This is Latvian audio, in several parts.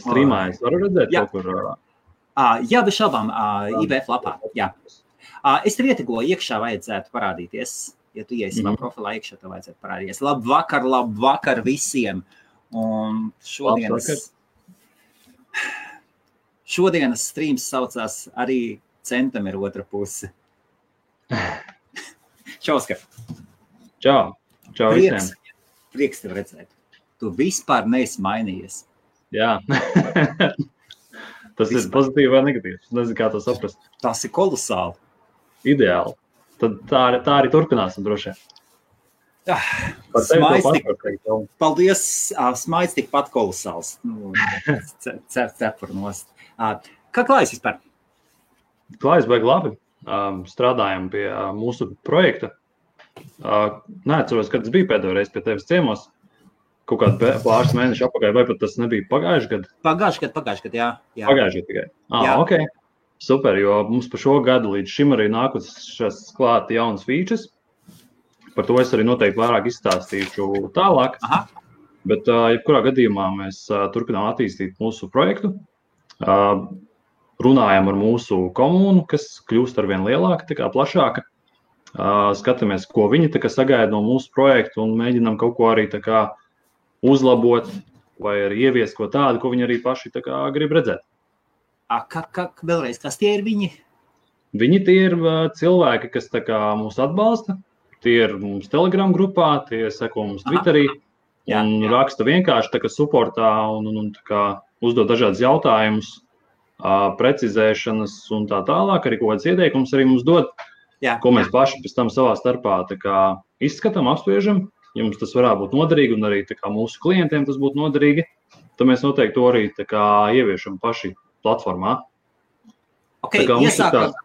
Streamā es varu redzēt Jā. kaut kur. Jā, bez šaubām, IBF lapā. Jā. Es tev ietegoju, iekšā vajadzētu parādīties. Ja tu iesi savā profilā iekšā, tev vajadzētu parādīties. Labvakar visiem. Un šodienas streams saucās arī Centam ir otra puse. Čau, Oskar. Čau visiem. Prieks tev redzēt. Tu vispār neesi mainījies. Jā. Tas ir pozitīvi vai negatīvs? Nezinu, kā to saprast. Tas ir kolosāli. Ideāli. Tad tā arī turpināsim droši vien. Paldies, smaids tikpat kolosāls. Cepur nost. Kā klājas vispār? Klājas baigi labi. Strādājam pie mūsu projekta. Neatceros, kad tas bija pēdējo reizi pie tevis ciemos. Kaut kādu pāris mēnešu apakaļ, vai pat tas nebija pagājuši gadu? Pagājuši gadu, jā. Pagājuši gadu tikai. Ok. Super, jo mums pa šo gadu līdz šim arī nākušas klāt jaunas features. Par to es arī noteikti vairāk izstāstīšu tālāk. Aha. Bet, jebkurā gadījumā mēs turpinām attīstīt mūsu projektu. Runājam ar mūsu komunu, kas kļūst arvien lielāka, tā kā plašāka. Skatāmies, ko viņi tā kā sagaida no mūsu projektu un mēģinām kaut ko arī tā kā uzlabot vai arī ieviest ko tādu, ko viņi arī paši tā kā grib redzēt. Vēlreiz, kas tie ir viņi? Viņi tie ir cilvēki, kas tā kā mūs atbalsta. Tie ir mums Telegram grupā, tie seko mums Twitterī un raksta vienkārši tā kā supportā un tā kā uzdod dažādas jautājumus, precizēšanas un tā tālāk. Arī kaut kāds ieteikums arī mums dod, ko mēs paši pēc tam savā starpā tā kā izskatām, apspriežam. Ja mums tas varētu būt noderīgi un arī tā kā mūsu klientiem tas būtu noderīgi, tad mēs noteikti to arī tā kā ieviešam paši platformā. Okay, iesākam.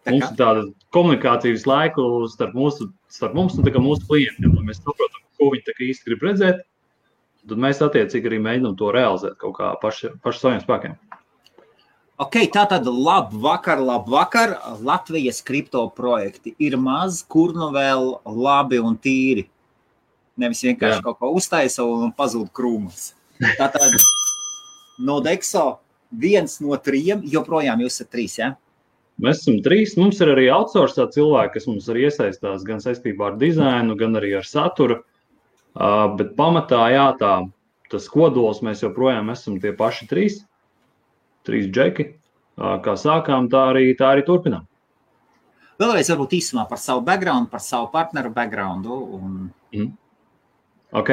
Mums ir tāda komunikācijas laiku starp mums un tā kā mūsu klientiem. Lai mēs saprotam, ko viņi tā kā īsti grib redzēt, tad mēs attiecīgi arī mēģinām to realizēt kaut kā paši saviem spēkiem. Ok, tātad labvakar. Latvijas kripto projekti ir maz, kur nu vēl labi un tīri. Nevis vienkārši kaut ko uztaisa un pazūd krūmas. Tātad no Dexo 1 no 3, joprojām jūs esat 3, ja? Mēs esam 3. Mums ir arī outsourcā cilvēki, kas mums arī iesaistās gan saistībā ar dizainu, gan arī ar saturu. Bet pamatā, tas kodols mēs joprojām esam tie paši 3 džeki. Kā sākām, tā arī turpinām. Vēlreiz varbūt īsumā par savu background, par savu partneru backgroundu. Ok,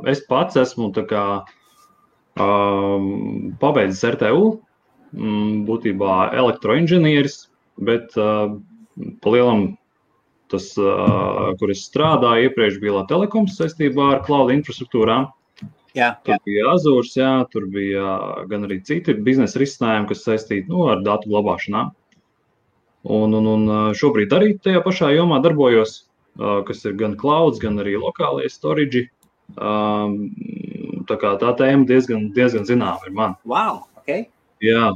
es pats esmu tā kā pabeidzis RTU, būtībā elektroinženieris, bet pa lielam tas, kur es strādāju, iepriekš bija Telekoms saistībā ar cloud infrastruktūrām. Tur bija Azures, tur bija gan arī citi biznesa risinājumi, kas saistīti ar datu glabāšanām. Un šobrīd arī tajā pašā jomā darbojos, kas ir gan clouds, gan arī lokālie storage. Tā kā tā tēma diezgan zināma ir man. Wow, ok. Jā,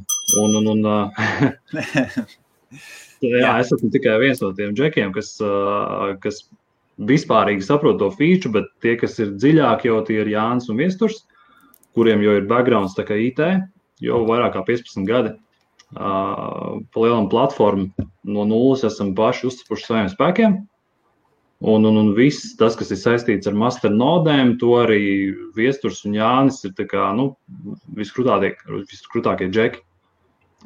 es esmu tikai viens no tiem džekiem, kas vispārīgi saprot to feature, bet tie, kas ir dziļāk, jau tie ir Jānis un Viesturs, kuriem jau ir backgrounds tā kā IT, jau vairāk kā 15 gadi. Pa lielam platformu no nulles esam paši uzcepuši saviem spēkiem. Un viss tas, kas ir saistīts ar master nodēm, to arī Viesturs un Jānis ir tā kā, viskrūtākie džeki,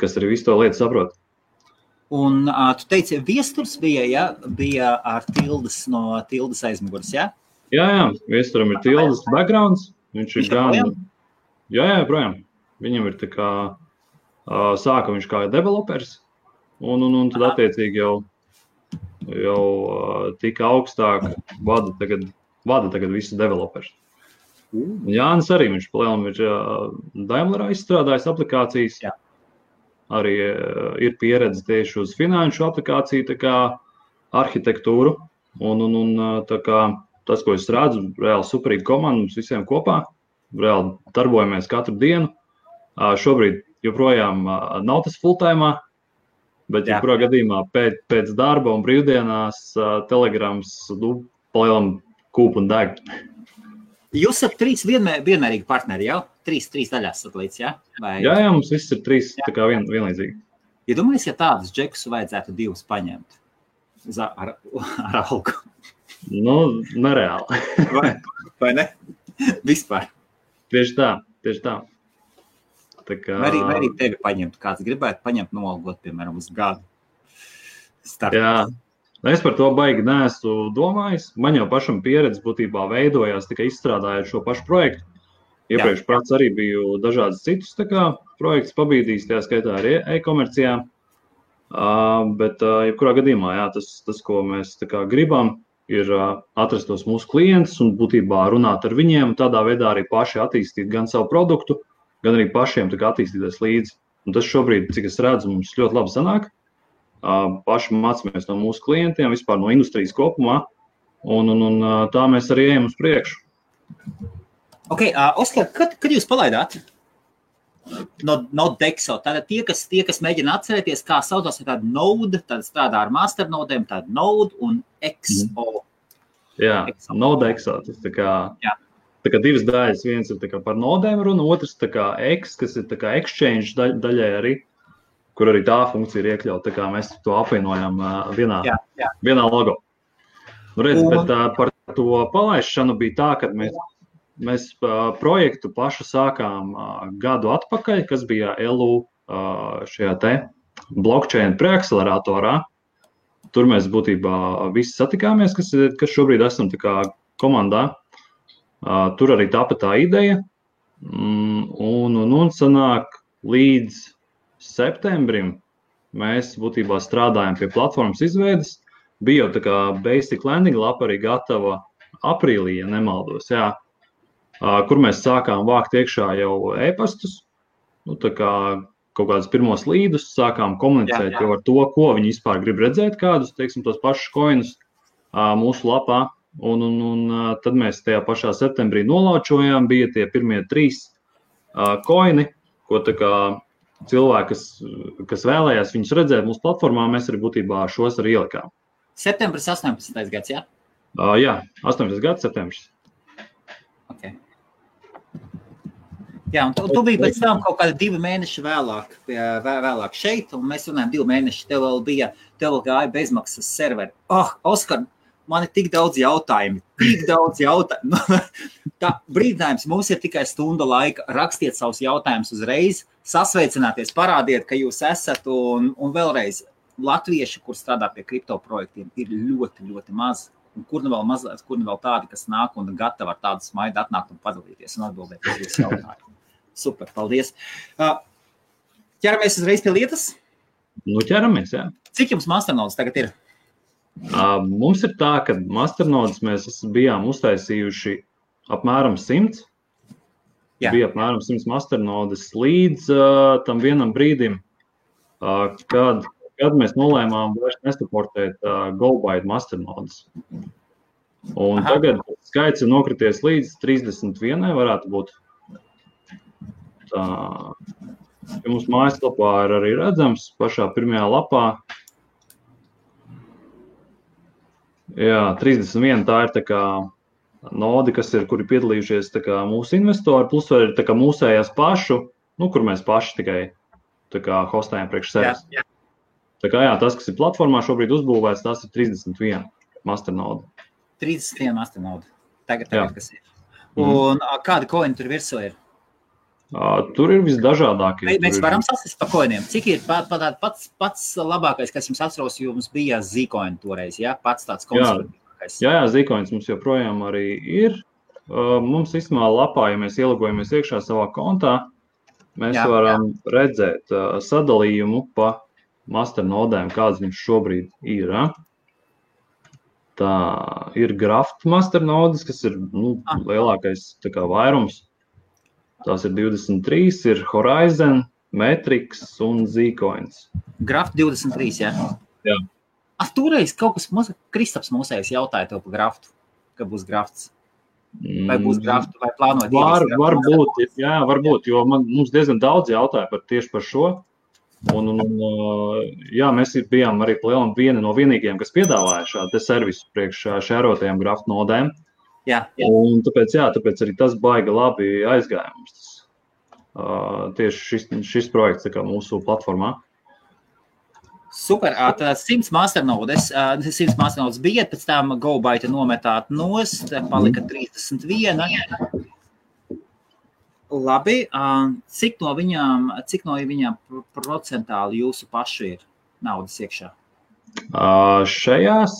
kas arī visu to lietu saprot. Un tu teici, Viesturs bija ar Tildes no Tildes aizmugures, jā? Jā, Viesturam ir Tildes backgrounds. Viņš ir gan... Jā, projām. Viņam ir tā kā, sāka viņš kā developers, un tad attiecīgi jau tika augstāk vada tagad visus developers. Jānis arī, viņš palielam ir Daimlerā izstrādājis aplikācijas. Jā. Arī ir pieredze tieši uz finanšu aplikāciju tā kā arhitektūru. Un tā kā tas, ko es redzu, reāli superīga komanda mums visiem kopā. Reāli darbojamies katru dienu. Šobrīd joprojām nav tas full-time, bet jebkurā gadījumā pēc darba un brīvdienās Telegrams palielam kūp un deg. Jūs esat 3 vienmērīgi partneri, jau? trīs daļās satelīts, jā? Vai... Jā, mums viss ir 3 tā kā vienlīdzīgi. Ja domājies, ja tādus džekus vajadzētu 2 paņemt ar algu? Nu, nereāli. Vai ne? Vispār. Tieši tā. Tā kā... Vai arī tevi paņemt, kāds gribētu paņemt nolgot, piemēram, uz gadu. Jā, es par to baigi neesmu domājis. Man jau pašam pieredze būtībā veidojās tikai izstrādājot šo pašu projektu. Iepriekš prāts arī biju dažādas citus projektus pabīdījis, tajā skaitā arī e-komercijā. Bet jebkurā gadījumā, jā, tas, ko mēs gribam, ir atrast tos mūsu klientus un būtībā runāt ar viņiem, tādā veidā arī paši attīstīt gan savu produktu, gan arī pašiem attīstīties līdzi. Un tas šobrīd, cik es redzu, mums ļoti labi sanāk. Paši mācāmies no mūsu klientiem, vispār no industrijas kopumā, un tā mēs arī ejam uz priekšu. Ok, Oskar, kad jūs palaidāt no Dexo? Tātad tie, kas mēģina atcerēties, kā saucās, ir tāda Node, tad strādā ar masternodēm, tāda Node un XO. Jā, Node XO, tas tā kā 2 daļas, viens ir par nodēm runa, otrs X, kas ir exchange daļai arī, kur arī tā funkcija ir iekļauta, tā kā mēs to apvienojam vienā logo. Nu, redz, bet par to palaišanu bija tā, ka mēs projektu pašu sākām gadu atpakaļ, kas bija LU šajā te blockchain preakceleratorā. Tur mēs būtībā visi satikāmies, kas šobrīd esam komandā. Tur arī tapa tā ideja. Un sanāk līdz septembrim mēs būtībā strādājam pie platformas izveides. Bija jau basic landing lapa arī gatava aprīlī, ja nemaldos, jā. Kur mēs sākām vākt iekšā jau e-pastus, kaut kādus pirmos līdus, sākām komunicēt jau ar to, ko viņi vispār grib redzēt, kādus, tos pašus coinus mūsu lapā. Un tad mēs tajā pašā septembrī nolaučojām, bija tie pirmie 3 coini, ko cilvēki, kas vēlējās viņus redzēt mūsu platformā, mēs arī būtībā šos arī ielikām. Septembris 18. gads, jā? Jā, 18. gads, septembris. Okay. Jā, un tu biji pēc tam kaut kādi 2 mēneši vēlāk šeit, un mēs runājam 2 mēneši, tev vēl gāja bezmaksas serveri. Oskar, man ir tik daudz jautājumu. Tā brīdinājums, mums ir tikai stunda laika, rakstiet savus jautājumus uzreiz, sasveicināties, parādiet, ka jūs esat, un vēlreiz latvieši, kur strādā pie kripto projektiem, ir ļoti, ļoti maz. Un kur nu vēl tādi, kas nāk un gatavi ar tādu smaidu atnākt un padalīties un atbildēt uz jūsu jautājumu. Super, paldies. Ķeramies uzreiz pie lietas? Nu, ķeramies, jā. Cik jums masternodes tagad ir? Mums ir tā, ka masternodes mēs bijām uztaisījuši apmēram 100. Jā. Bija apmēram 100 masternodes līdz tam vienam brīdim, kad mēs nolēmām vairs nesaportēt GoByte masternodes. Un tagad skaits ir nokrities līdz 31, varētu būt. Tā, ja mums mājaslapā ir arī redzams, pašā pirmajā lapā. Jā, 31 tā ir nodi, kuri piedalījušies mūsu investori, plus vēl ir mūsējās pašu, kur mēs paši tikai hostējam priekš sevis. Jā. Tas, kas ir platformā šobrīd uzbūvēts, tas ir 31 masternode. 31 masternode. Tagad kas ir. Un kādi coini tur virsū ir? Tur ir visdažādākie. Mēs varam sasist pa coiniem. Cik ir pats labākais, kas jums atceros, jums bija Zcoin toreiz, ja? Pats tāds konservatīvākais. Jā, Zcoins mums joprojām arī ir. Mums vismā lapā, ja mēs ielogojamies iekšā savā kontā, mēs varam redzēt sadalījumu pa masternodēm, kādas viņš šobrīd ir. Tā ir Graft masternodes, kas ir lielākais vairums. Tās ir 23, ir Horizon, Matrix un Zcoins. Graft 23, jā? Jā. Toreiz kaut kas Kristaps mūsējais jautāja tev par Graftu, ka būs Grafts. Vai būs Graftu, vai plānojat? Varbūt, jo mums diezgan daudz jautāja tieši par šo. Mēs bijām arī vieni no vienīgiem, kas piedāvāja šādu servisu priekš šērotajām Graft nodēm. Jā. Un tāpēc arī tas baigi labi aizgāja mums. tieši šis projekts tā kā mūsu platformā. Super, tad 100 masternodes bija, pēc tam GoByte nometāt nost, palika 31. Labi, cik no viņām procentāli jūsu pašu ir naudas iekšā? Šajās?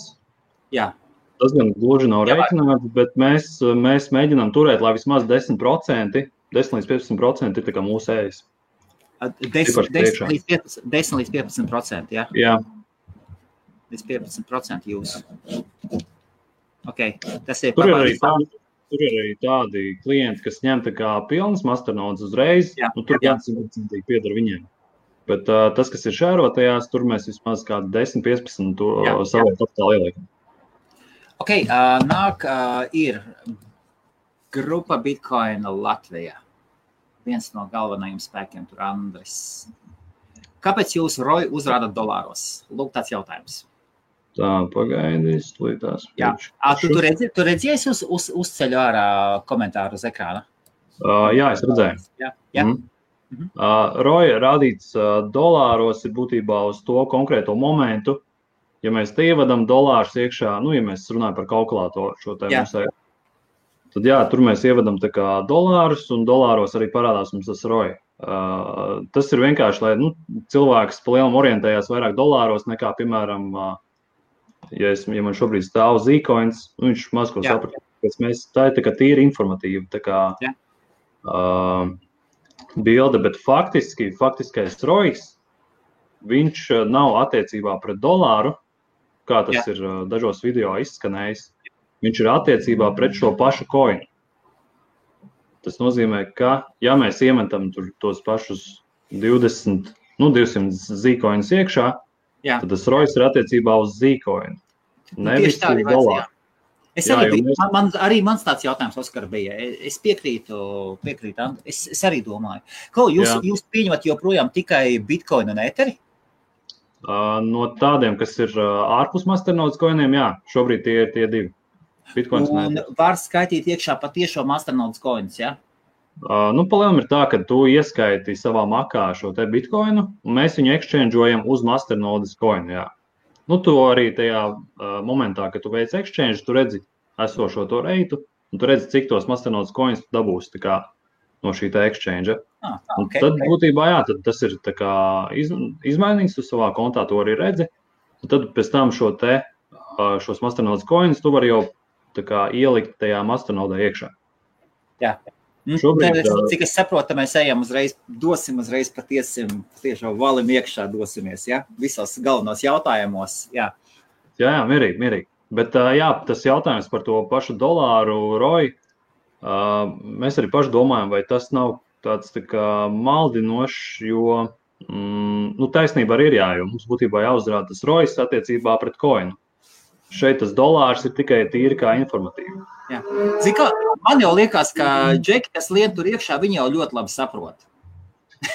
Jā. Tas gan gluži nav rēķināts, bet mēs mēģinām turēt, lai vismaz 10% līdz 15% ir tā kā mūsu ējas. 10 līdz 15%, jā? Jā. Līdz 15% jūsu. Ok, tas ir Tur ir arī tādi klienti, kas ņem tā kā pilnas masternodes uzreiz, un tur gan 100% pieder viņiem. Bet tas, kas ir šērotajās, tur mēs vismaz kādu 10-15 to savu kapitālu ieliekam. Ok, nāk ir grupa Bitcoin Latvijā. Viens no galvenajiem spēkiem tur Andris. Kāpēc jūs ROI uzrādat dolāros? Lūk, tāds jautājums. Tā, pagaidīs, līdās. Jā, tu redzies uzceļu ārā komentāru uz ekrāna? Jā, es redzēju. Jā. ROI rādīts dolāros ir būtībā uz to konkrēto momentu. Ja mēs te ievadam dolārus iekšā, ja mēs runājam par kalkulātoru šo tēmu, tad jā, tur mēs ievadam tā kā dolārus, un dolāros arī parādās mums tas ROI. Tas ir vienkārši, lai cilvēks pa lielam orientējās vairāk dolāros nekā, piemēram, ja man šobrīd stāv Zcoins, viņš maz ko saprat, tā ir tā kā tīri informatīva, tā kā bilde, bet faktiskais ROIs, viņš nav attiecībā pret dolāru, kā tas ir dažos video izskanējis. Viņš ir attiecībā pret šo pašu koinu. Tas nozīmē, ka, ja mēs iemetam tur tos pašus 200 Zcoinus iekšā, tad tas ROIs ir attiecībā uz Zcoinu. Nevis uz dolāru. Arī mans tāds jautājums, Oskar, bija. Es piekrītu, es arī domāju. Jūs pieņemat joprojām tikai Bitcoin un Etheri? No tādiem, kas ir ārpus masternodes koiniem, jā, šobrīd tie ir tie divi. Bitcoins un var skaitīt iekšā patiešo masternodes koinus, jā? Palielam ir tā, ka tu ieskaiti savā makā šo te Bitcoinu, un mēs viņu exchangeojam uz masternodes koinu, jā. Tu arī tajā momentā, kad tu veic exchange, tu redzi esošo to reitu, un tu redzi, cik tos masternodes koinus tu dabūsi tā kā no šī tā exchange. Tad būtībā, jā, tad tas ir tā kā izmainīts, tu savā kontā to arī redzi, un tad pēc tam šos masternodes koinus tu vari jau tā kā ielikt tajā masternodē iekšā. Jā. Šobrīd, cik es saprotu, mēs dosim uzreiz patiešām valim iekšā dosimies, ja? Visos galvenos jautājumos, jā. Jā, mierīgi. Bet jā, tas jautājums par to pašu dolāru ROI, mēs arī paši domājam, vai tas nav tāds tā kā maldinošs, jo taisnība arī ir jo mums būtībā jāuzrāda tas ROIs attiecībā pret koinu. Šeit tas dolārs ir tikai tīri kā informatīvi. Jā. Zini kā, man jau liekas, ka džeki, kas lien tur iekšā, viņi jau ļoti labi saprot.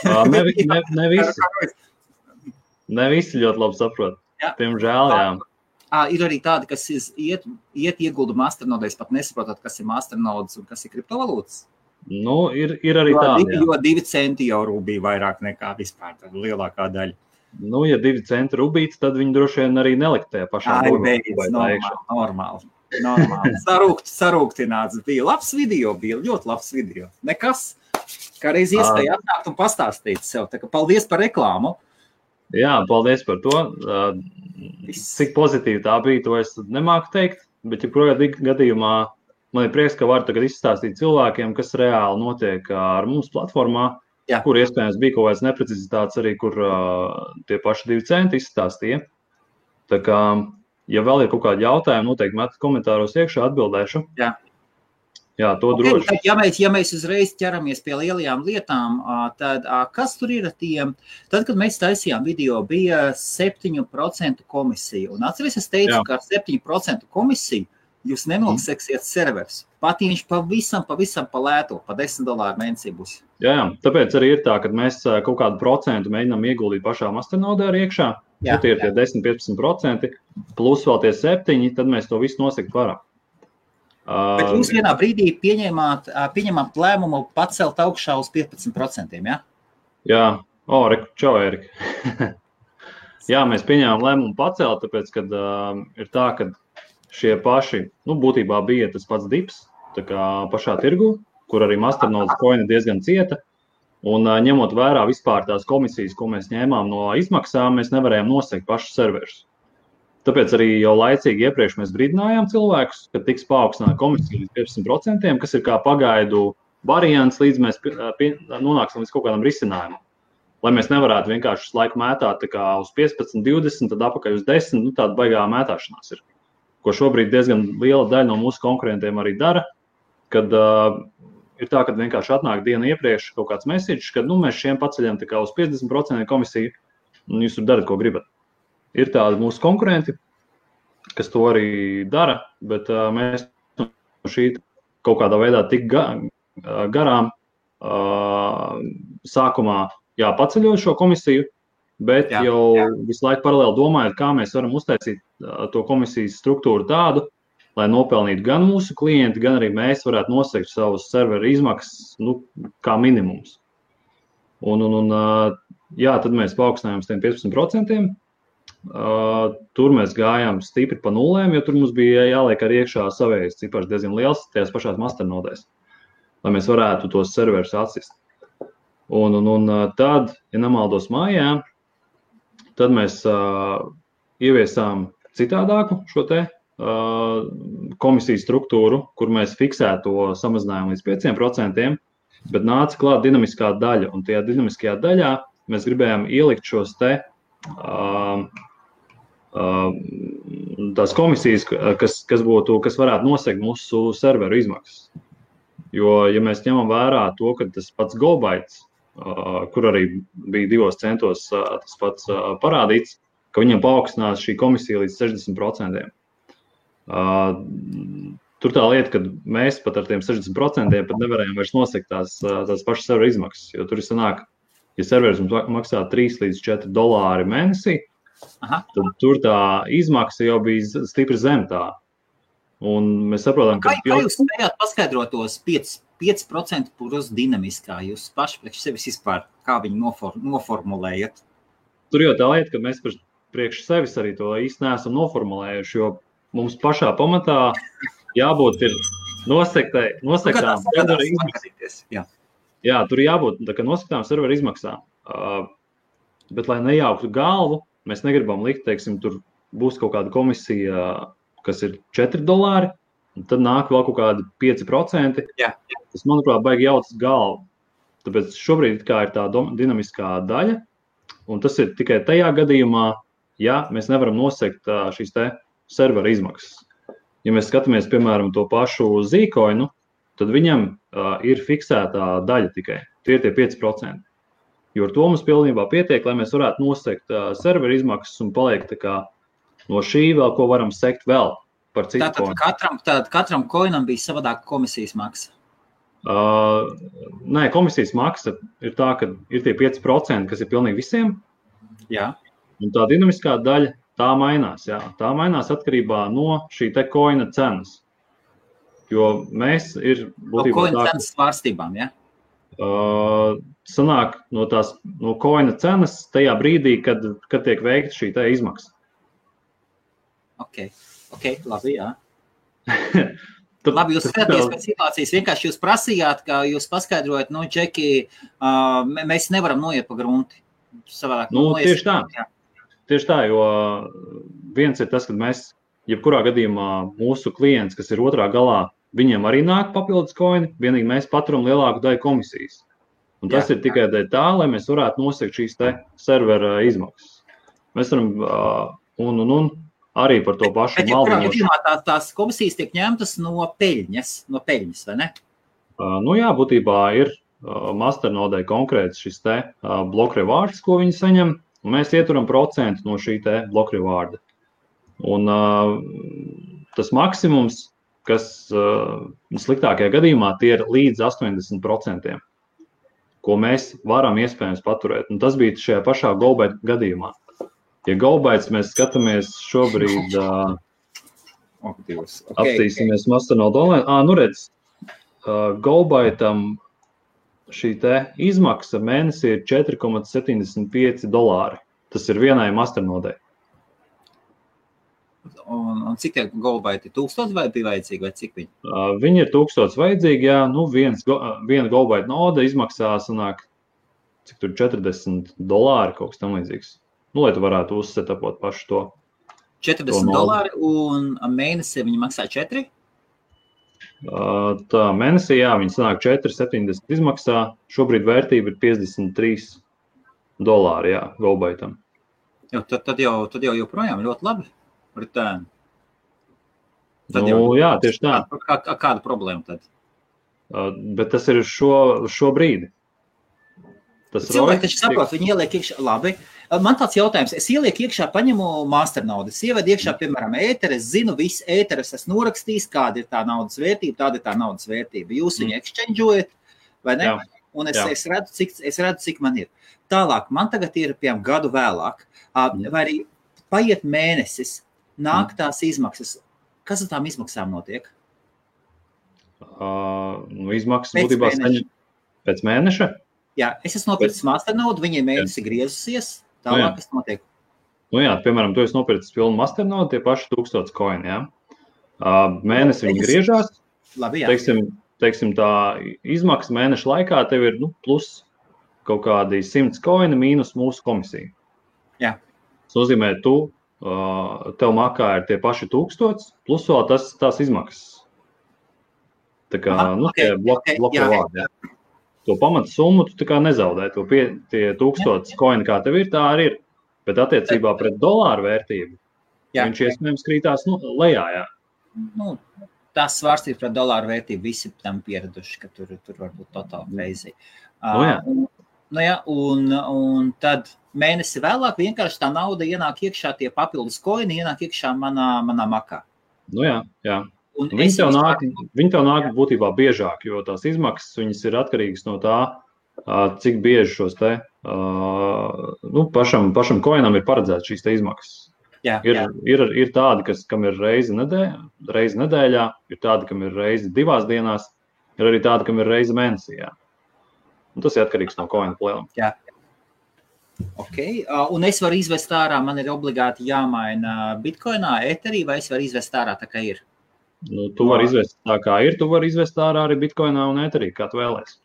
Ne visi. Ne visi ļoti labi saprot. Piemžēl, jā. Ir arī tādi, kas iet iegulda masternodēs, pat nesaprotot, kas ir masternodes un kas ir kriptovalūtas. Ir arī tādi, jā. Jo 2 centi jau rubija vairāk nekā vispār, tad lielākā daļa. Ja 2 centi rubīts, tad viņi droši vien arī nelikt tajā pašā normāli. Sarūktināts bija. Labs video, ļoti labs video. Nekas, kā reiz iespēja atnākt un pastāstīt sev. Tā kā paldies par reklāmu. Jā, paldies par to. Cik pozitīvi tā bija, to es nemāku teikt, bet jebkurā gadījumā man ir prieks, ka varu tagad izstāstīt cilvēkiem, kas reāli notiek ar mums platformā. Jā. Kur iespējams bija kaut kāds neprecizitāts arī, kur tie paši 2 centi izstāstīja. Tā kā, ja vēl ir kaut kādi jautājumi, noteikti metat komentāros iekšā, atbildēšu. Jā, to droši. Ja mēs uzreiz ķeramies pie lielajām lietām, tad kas tur ir tiem? Tad, kad mēs taisījām video, bija 7% komisija. Un atceries, es teicu, ka ar 7% komisiju jūs nenoliksiet servers. Pat ja viņš pavisam pa lēto, pa $10 mēnesī būs. Jā, tāpēc arī ir tā, ka mēs kaut kādu procentu mēģinām ieguldīt pašā masternodē arī iekšā. Ja tie ir tie 10-15%, plus vēl tie 7%, tad mēs to visu nosegt varam. Bet jūs vienā brīdī pieņemāt lēmumu pacelt augšā uz 15%, ja? Jā, čau, Erika. Jā, mēs pieņēmām lēmumu pacelt, tāpēc, kad ir tā, ka šie paši, būtībā bija tas pats dips, tā kā pašā tirgu, kur arī Masternodes coina diezgan cieta, un ņemot vērā vispār tās komisijas, ko mēs ņēmām no izmaksām, mēs nevarējām nosegt pašus serverus. Tāpēc arī jau laicīgi iepriekš mēs brīdinājām cilvēkus, ka tiks paaugstināta komisija līdz 15%, kas ir kā pagaidu variants, līdz mēs nonāksim līdz kaut kādam risinājumam. Lai mēs nevarētu vienkārši laiku mētāt tā kā uz 15, 20, tad apakaļ uz 10, tāda baigā mētāšanās ir. Ko šobrīd diezgan liela daļa no mūsu konkurentiem arī dara, kad ir tā, kad vienkārši atnāk dienu iepriekš kaut kāds message, kad mēs šiem paceļam tā kā uz 50% komisiju, un jūs tur darat, ko gribat. Ir tādi mūsu konkurenti, kas to arī dara, bet mēs no šī kaut kādā veidā tik garām sākumā paceļot šo komisiju, bet jau visu laiku paralēli domājot, kā mēs varam uztaisīt to komisijas struktūru tādu, lai nopelnītu gan mūsu klienti, gan arī mēs varētu nosegt savus serveru izmaksas, kā minimums. Tad mēs paaugstinājām uz tiem 15%. Tur mēs gājām stipri pa nulēm, jo tur mums bija jāliek arī iekšā savējais cipars diezgan liels tajās pašās masternodēs, lai mēs varētu tos serverus atsist. Un tad, ja nemaldos mājā, tad mēs ieviesām citādāku šo te komisijas struktūru, kur mēs fiksētu to samazinājumu līdz 5%, bet nāca klāt dinamiskā daļa, un tajā dinamiskajā daļā mēs gribējām ielikt šos te tās komisijas, kas varētu nosegt mūsu serveru izmaksas. Jo, ja mēs ņemam vērā to, ka tas pats GoBytes, kur arī bija 2 centos tas pats parādīts, ka viņam paaugstinās šī komisija līdz 60%. Tur tā lieta, ka mēs pat ar tiem 60% pat nevarējām vairs nosegt tās pašas serveru izmaksas, jo tur ir sanāk, ja serveris mums maksā $3 līdz $4 mēnesī, tad tur tā izmaksa jau bija stipri zem tā. Un mēs saprotam, ka... Kā jūs spējāt paskaidrot tos 5% plus dinamiskā? Jūs paši priekš sevis vispār, kā viņi noformulējat? Tur jau tā lieta, ka mēs priekš sevis arī to īsti neesam noformulējuši, jo mums pašā pamatā jābūt ir nosektām serveru izmaksas. Jā, tur jābūt nosektām serveru izmaksām. Bet, lai nejauktu galvu, mēs negribam likt, teiksim, tur būs kaut kāda komisija, kas ir $4, un tad nāk vēl kaut kādi 5%. Jā. Tas, manuprāt, baigi jautas galvu. Tāpēc šobrīd kā ir tā dinamiskā daļa, un tas ir tikai tajā gadījumā, ja mēs nevaram nosegt šīs te servera izmaksas. Ja mēs skatāmies, piemēram, to pašu Zcoinu, tad viņam ir fiksētā daļa tikai. Tie ir tie 5%. Jo ar to mums pilnībā pietiek, lai mēs varētu nosegt serveru izmaksas un paliek tā kā no šī vēl, ko varam sekt vēl par citu koinu. Tātad katram koinam bija savādāka komisijas maksa? Nē, komisijas maksa ir tā, ka ir tie 5%, kas ir pilnīgi visiem. Jā. Un tā dinamiskā daļa, tā mainās. Jā. Tā mainās atkarībā no šī te koina cenas. Jo mēs ir būtībā no koina cenas svārstībām, jā? Sanāk no koina cenas tajā brīdī, kad tiek veikta šī tā izmaksa. Ok, labi, jā. Labi, jūs skatāties pēc situācijas, vienkārši jūs prasījāt, ka jūs paskaidrojat, Džeki, mēs nevaram noiet pa grunti. Savādāk, tieši tā. Jā. Tieši tā, jo viens ir tas, ka mēs, jebkurā gadījumā mūsu klients, kas ir otrā galā, viņiem arī nāk papildus koini, vienīgi mēs paturam lielāku daļu komisijas. Un tas ir tikai tā, lai mēs varētu nosegt šīs te servera izmaksas. Mēs varam, arī par to pašu maldinošu. Bet, tās komisijas tiek ņemtas no peļņas, vai ne? Jā, būtībā ir Masternodē konkrēts šis te block rewards, ko viņi saņem, un mēs ieturam procentu no šī te block rewarda. Un tas maksimums, kas sliktākajā gadījumā tie ir līdz 80%, ko mēs varam iespējams paturēt. Un tas bija šajā pašā GoByte gadījumā. Ja GoBytes mēs skatāmies šobrīd... Okay. Apstīsimies Masternode online. Nu redz, GoByte'am šī te izmaksa mēnesī ir $4,75. Tas ir vienai Masternodei. Un cik tie GoByte ir 1000 vai bija vajadzīgi, vai cik viņi? Viņi ir 1000 vajadzīgi, jā. Nu, viena GoByte node izmaksā, sanāk, cik tur $40, kaut kas tam līdzīgs. Nu, lai tu varētu uzsetapot pašu to. $40 un mēnesī viņi maksā 4? Tā mēnesī, jā, viņi sanāk 4,70 izmaksā. Šobrīd vērtība ir $53, jā, GoByte'am. Tad jau joprojām ļoti labi. Return. Jā, tieši tā. Kāda problēma tad? Bet tas ir šobrīd. Cilvēki taču saprot, viņi ieliek iekšā. Labi. Man tāds jautājums. Es ielieku iekšā, paņemu Masternode. Es ievedu iekšā, piemēram, ēteru. Es zinu, visu ēteru es norakstījis, kāda ir tā naudas vērtība, tāda ir tā naudas vērtība. Jūs viņu exchangeojat, vai ne? Jā. Un es redzu, cik man ir. Tālāk, man tagad ir, piemēram, gadu vēlāk. Vai arī paiet mēnesis, nāk tās izmaksas. Kas ar tām izmaksām notiek? Izmaksas būtībā pēc mēneša? Jā, es esmu nopircis Masternode, viņi mēnesi griezusies, tālāk kas notiek? Jā, piemēram, tu esi nopircis pilnu Masternode, tie paši 1000 koini, jā. Mēnesi viņi griežās, labi, jā. Teiksim, tā izmaksa mēneša laikā tev ir plus kaut kādi 100 koini mīnus mūsu komisija. Jā. Tas nozīmē, tev makā ir tie paši 1000, plus vēl tās izmaksas. Tā kā, tie bloku vārdi, jā. To pamata summu tu tā kā nezaudē. Tie 1000 koini, kā tev ir, tā arī ir. Bet attiecībā pret dolāru vērtību, viņš iespējams krītās lejā, jā. Tās svārstības pret dolāru vērtību visi tam pieraduši, ka tur varbūt totāli crazy. Un tad mēnesi vēlāk vienkārši tā nauda ienāk iekšā, tie papildus koini ienāk iekšā manā makā. Jā. Viņi tev nāk būtībā biežāk, jo tās izmaksas viņas ir atkarīgas no tā, cik bieži šos te, pašam koinam ir paredzēts šīs te izmaksas. Jā. Ir tādi, kam ir reizi nedēļā, ir tādi, kam ir reizi 2 dienās, ir arī tādi, kam ir reizi mēnesī, jā. Un tas ir atkarīgs no koina plēlam. Jā. Ok, un es varu izvest ārā, man ir obligāti jāmaina bitcoinā, eterī, vai es varu izvest ārā tā, kā ir? Tu vari izvest tā, kā ir, tu vari izvest ārā arī bitcoinā un eterī, kā tu vēlēsi.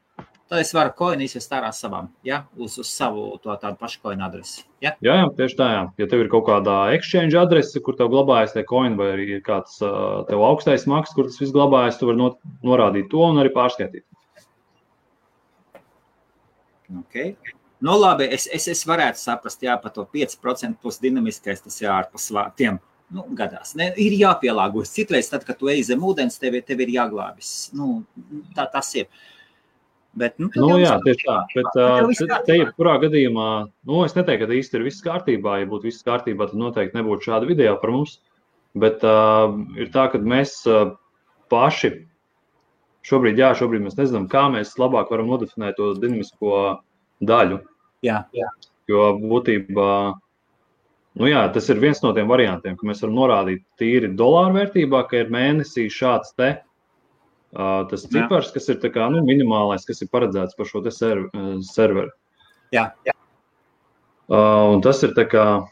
Tad es varu koinu izvest ārā savām, ja? Uz savu tādu pašu koinu adresi. Ja? Jā, tieši tā, jā. Ja tev ir kaut kādā exchange adrese, kur tev glabājas tie koini, vai arī ir kāds tev augstais maksas, kur tas viss glabājas, tu vari norādīt to un arī pārskaitīt. Ok. Labi, es varētu saprast, jā, par to 5% plus dinamiskais, tas jāārpas tiem. Gadās. Ir jāpielāgojas. Citreiz, tad, kad tu ej zem ūdens, tev ir jāglābis. Tas ir. Bet, jā, tieši tā. Bet te jebkurā gadījumā, es neteiktu, ka īsti ir viss kārtībā. Ja būtu viss kārtībā, tad noteikti nebūtu šāda video par mums. Bet ir tā, ka mēs paši šobrīd mēs nezinām, kā mēs labāk varam nodefinēt to dinamisko daļu. Jā. Jo būtībā tas ir viens no tiem variantiem, ka mēs varam norādīt tīri dolāru vērtībā, ka ir mēnesī šāds tas cipars, kas ir tā kā, minimālais, kas ir paredzēts par šo te serveru. Jā. Un tas ir tā kā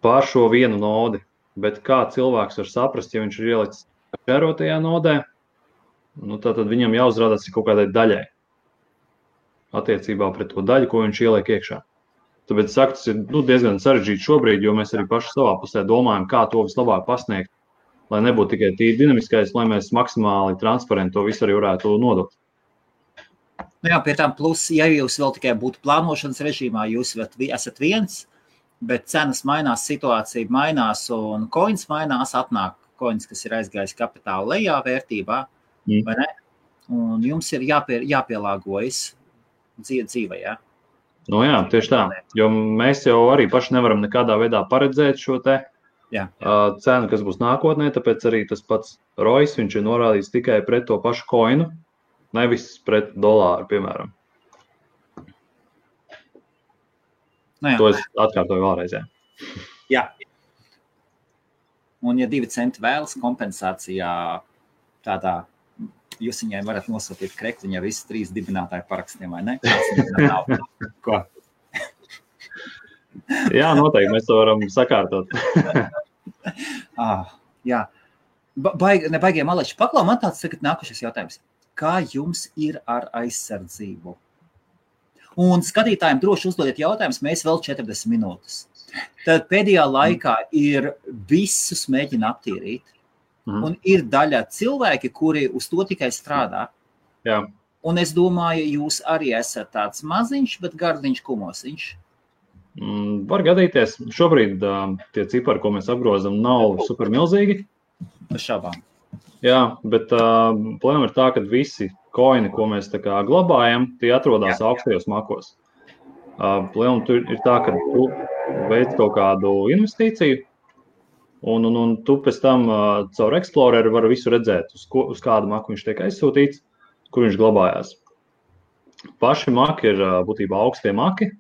pār šo vienu nodi, bet kā cilvēks var saprast, ja viņš ir ielicis šērotajā nodē, tad viņam jāuzrādās kaut kādai daļai attiecībā pret to daļu, ko viņš ieliek iekšā. Tāpēc saku, tas ir diezgan sarežģīti šobrīd, jo mēs arī paši savā pusē domājam, kā to vislabāk pasniegt, lai nebūtu tikai tīri dinamiskais, lai mēs maksimāli transparenti to visu arī varētu nodot. Jā, pie tām plus, ja jūs vēl tikai būtu plānošanas režīmā, jūs esat viens, bet cenas mainās, situācija mainās un koins mainās, atnāk koins, kas ir aizgājis kapitāla lejā vērtībā, vai ne? Un jums ir jāpielāgojas dzīvē, jā? Jā, tieši tā, jo mēs jau arī paši nevaram nekādā veidā paredzēt šo te cenu, kas būs nākotnē, tāpēc arī tas pats ROIs, viņš ir norādīts tikai pret to pašu koinu, nevis pret dolāru, piemēram. To es atkārtoju vēlreiz, jā. Jā. Un, ja 2 centi vēlas kompensācijā tādā, jūs viņai varat nosūtīt krekliņu ar visu 3 dibinātāju parakstiem, vai ne? Ko? Jā, noteikti, mēs to varam sakārtot. Jā. Nebaigie maleči. Paklau, man tāds tagad nākušais jautājums. Kā jums ir ar aizsardzību? Un skatītājiem droši uzdodiet jautājumus, mēs vēl 40 minūtes. Tad pēdējā laikā ir visus mēģina aptīrīt. Un ir daļa cilvēki, kuri uz to tikai strādā. Jā. Un es domāju, jūs arī esat tāds maziņš, bet gardiņš kumosiņš. Var gadīties. Šobrīd tie cipari, ko mēs apgrozam, nav super milzīgi. Šabām. Jā, bet problēma ir tā, ka visi koini, ko mēs tā kā glabājam, tie atrodas augstajos makos. Problēma tur ir tā, ka tu veic kaut kādu investīciju, un tu pēc tam caur Exploreru vari visu redzēt, uz kādu maku viņš tiek aizsūtīts, kur viņš glabājās. Paši maki ir būtībā augstie maki.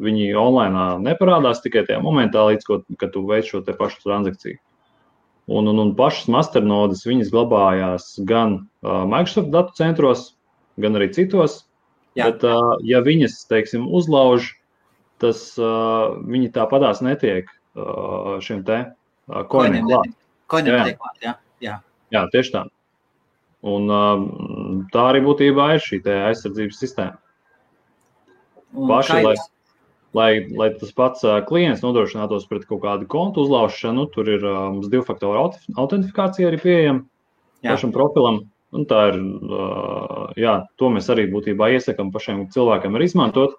Viņi online neparādās tikai tajā momentā, līdz kad tu veic šo te pašu transakciju. Un pašas masternodes viņas glabājās gan Microsoft datu centros, gan arī citos. Jā. Bet, ja viņas, teiksim, uzlauž, tas viņi tāpatās netiek šiem te koiniem klāt. Koiniem netiek klāt, jā. Jā, tieši tā. Un tā arī būtībā ir šī te aizsardzības sistēma. Paši, lai tas pats klients nodrošinātos pret kaut kādu kontu uzlaušanu, tur ir mums 2-faktoru autentifikācija arī pieejama pašam profilam. Un tā ir, to mēs arī būtībā iesakam pašiem cilvēkiem arī izmantot.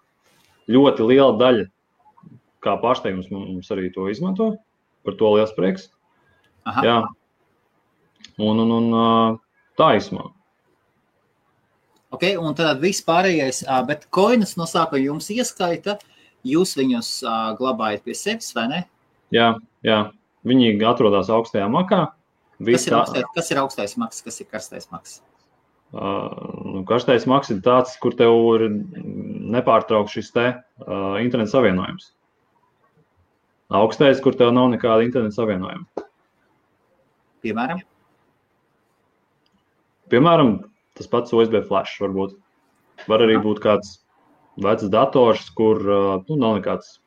Ļoti liela daļa, kā pārsteigums, mums arī to izmanto. Par to liels prieks. Aha. Jā. Un tā izmā. Ok, un tad viss pārējais, bet koinus no sākuma jums ieskaita, jūs viņus glabājat pie sevis, vai ne? Jā. Viņi atrodas augstajā makā. Kas ir augstais maks, kas ir karstais maks? Karstais maks ir tāds, kur tev ir nepārtraukts šis te interneta savienojums. Augstais, kur tev nav nekāda interneta savienojuma. Piemēram, tas pats USB flash varbūt. Var arī būt kāds vecs dators, kur nav nekāds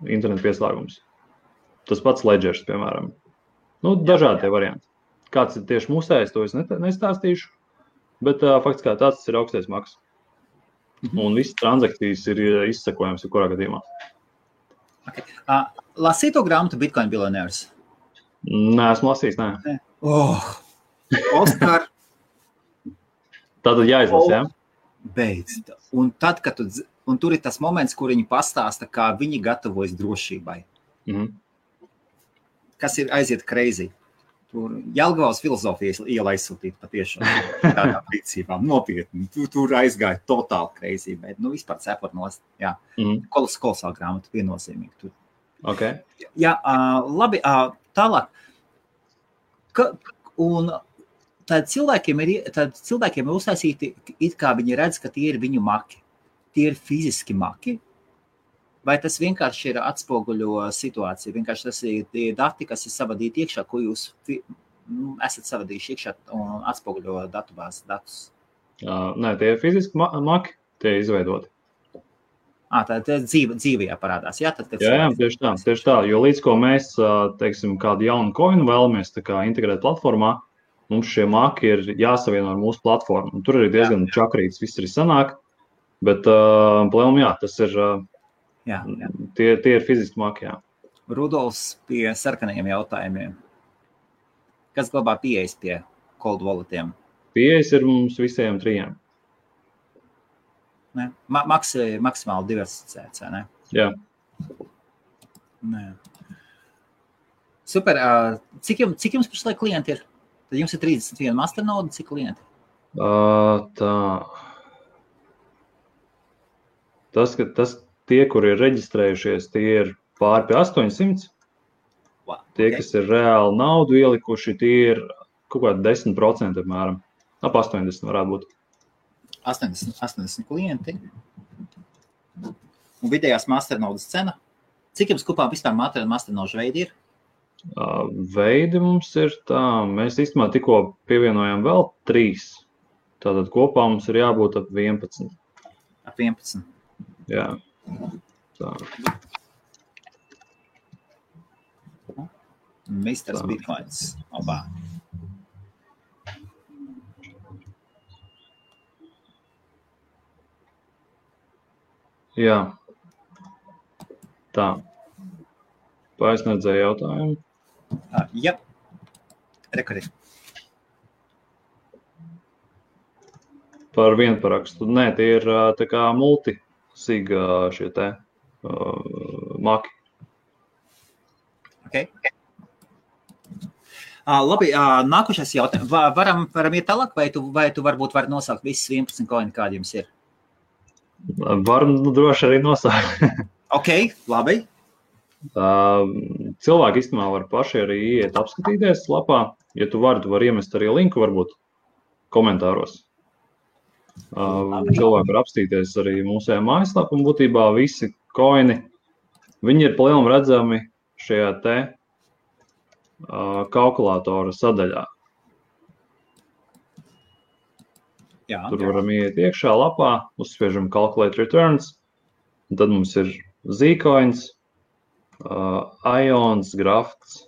interneta pieslēgums. Tas pats ledgers, piemēram. Dažādi tie varianti. Kāds ir tieši mūsējs, to es nestāstīšu, bet fakts kā tāds ir augstais maks. Un visas transakcijas ir izsekojams kurā gadījumā. Okay. Lasīto grāmatu Bitcoin Billionaires? Nē, esmu lasījis, nē. Oskar. Tātad jāizlasa, jā? Beidz. Un tad, kad tur ir tas moments, kur viņi pastāsta, kā viņi gatavojas drošībai. Kas ir aiziet crazy. Tur Jelgavas filozofijas iela aizsūtīt patiešām tādā rīcībām. Nopietni. Tur aizgāja totāli crazy, bet vispār cepot nost. Jā. Kolosāla grāmata viennozīmīgi tur. Okay. Jā, labi, tālāk. Un tad cilvēkiem ir uztaisīti, it kā viņi redz, ka tie ir viņu maki. Tie ir fiziski maki. Vai tas vienkārši ir atspoguļo situāciju? Vienkārši tas ir tie dati, kas ir savadīti iekšā, ko jūs esat savadījuši iekšā un atspoguļo datubāzes datus? Nē, tie ir fiziski maki, tie ir izveidoti. Tā dzīvajā parādās, jā? Jā, tieši tā, jo līdz ko mēs, teiksim, kādu jaunu koinu vēlamies tā kā integrēt platformā, mums šie maki ir jāsavieno ar mūsu platformu. Un tur arī diezgan čakrīts, viss arī sanāk, bet, plēm, tas ir... Jā. Tie ir fiziski maki, jā. Rudolfs pie sarkanajiem jautājumiem. Kas glabā pieejas pie cold walletiem? Pieejas ir mums visiem 3. Ne? Maksimāli diversificēts, vai ne? Jā. Nē. Super. Cik jums pašlaik klienti ir? Tad jums ir 31 masternode, cik klienti? Tie, kuri ir reģistrējušies, tie ir pāri pie 800. Wow, tie, kas ir reāli naudu ielikuši, tie ir kaut kādi 10%, apmēram. Ap 80 varētu būt. 80 klienti. Un vidējās masternodas cena? Cik jums kopā vispār masternožu veidi ir? Veidi mums ir tā, mēs īstenībā tikko pievienojam vēl 3. Tātad kopā mums ir jābūt ap 11. Ap 11. Jā. Tā. Misters Bitcoins. Obā. Jā. Tā. Paisniedzēja jautājumu. Jā. Rekord. Par vienparakstu. Nē, tie ir tā kā multisig šie te maki. Okay. Labi, nākošais jautājums. Varam iet tālāk, vai tu varbūt vari nosaukt visus 11 koini, kādi jums ir? Varam droši arī nosaukt. Ok, labi. Cilvēki īstenībā var paši arī iet apskatīties lapā. Ja tu vari iemest arī linku varbūt komentāros. Cilvēki var apstīties arī mūsējā mājaslapā un būtībā visi koini, viņi ir palielam redzami šajā te kalkulātora sadaļā. Jā. Tur varam iet iekšā lapā, uzspiežam Calculate Returns, un tad mums ir Zcoins, Ions, Grafts,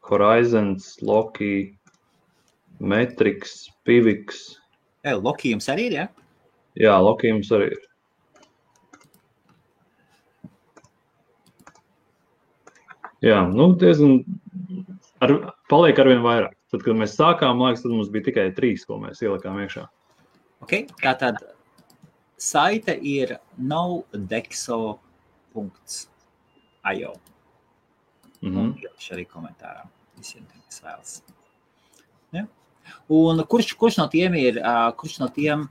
Horizons, Loki, Metrix, Pivix. Loki jums arī ir, jā? Jā, Loki jums arī ir. Jā, diezgan paliek arvien vairāk. Tad, kad mēs sākām, liekas, tad mums bija tikai 3, ko mēs ielikām iekšā. Ok, tātad saite ir nodexo.io. Un ielišu arī komentārā visiem, kas vēlas. Ja? Un kurš no tiem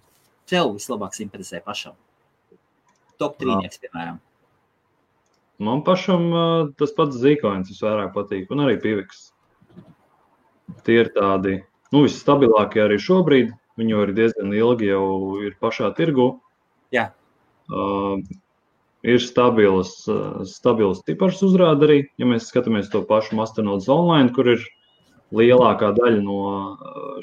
tev vislabāk simpatizē pašam? Top 3, piemēram. Man pašam tas pats Zcoins visvairāk patīk, un arī Pivix. Tie ir tādi, visstabilākie arī šobrīd. Viņi jau ir diezgan ilgi jau ir pašā tirgu. Jā. Ir stabils cipars uzrāda arī, ja mēs skatāmies to pašu Masternodes online, kur ir lielākā daļa no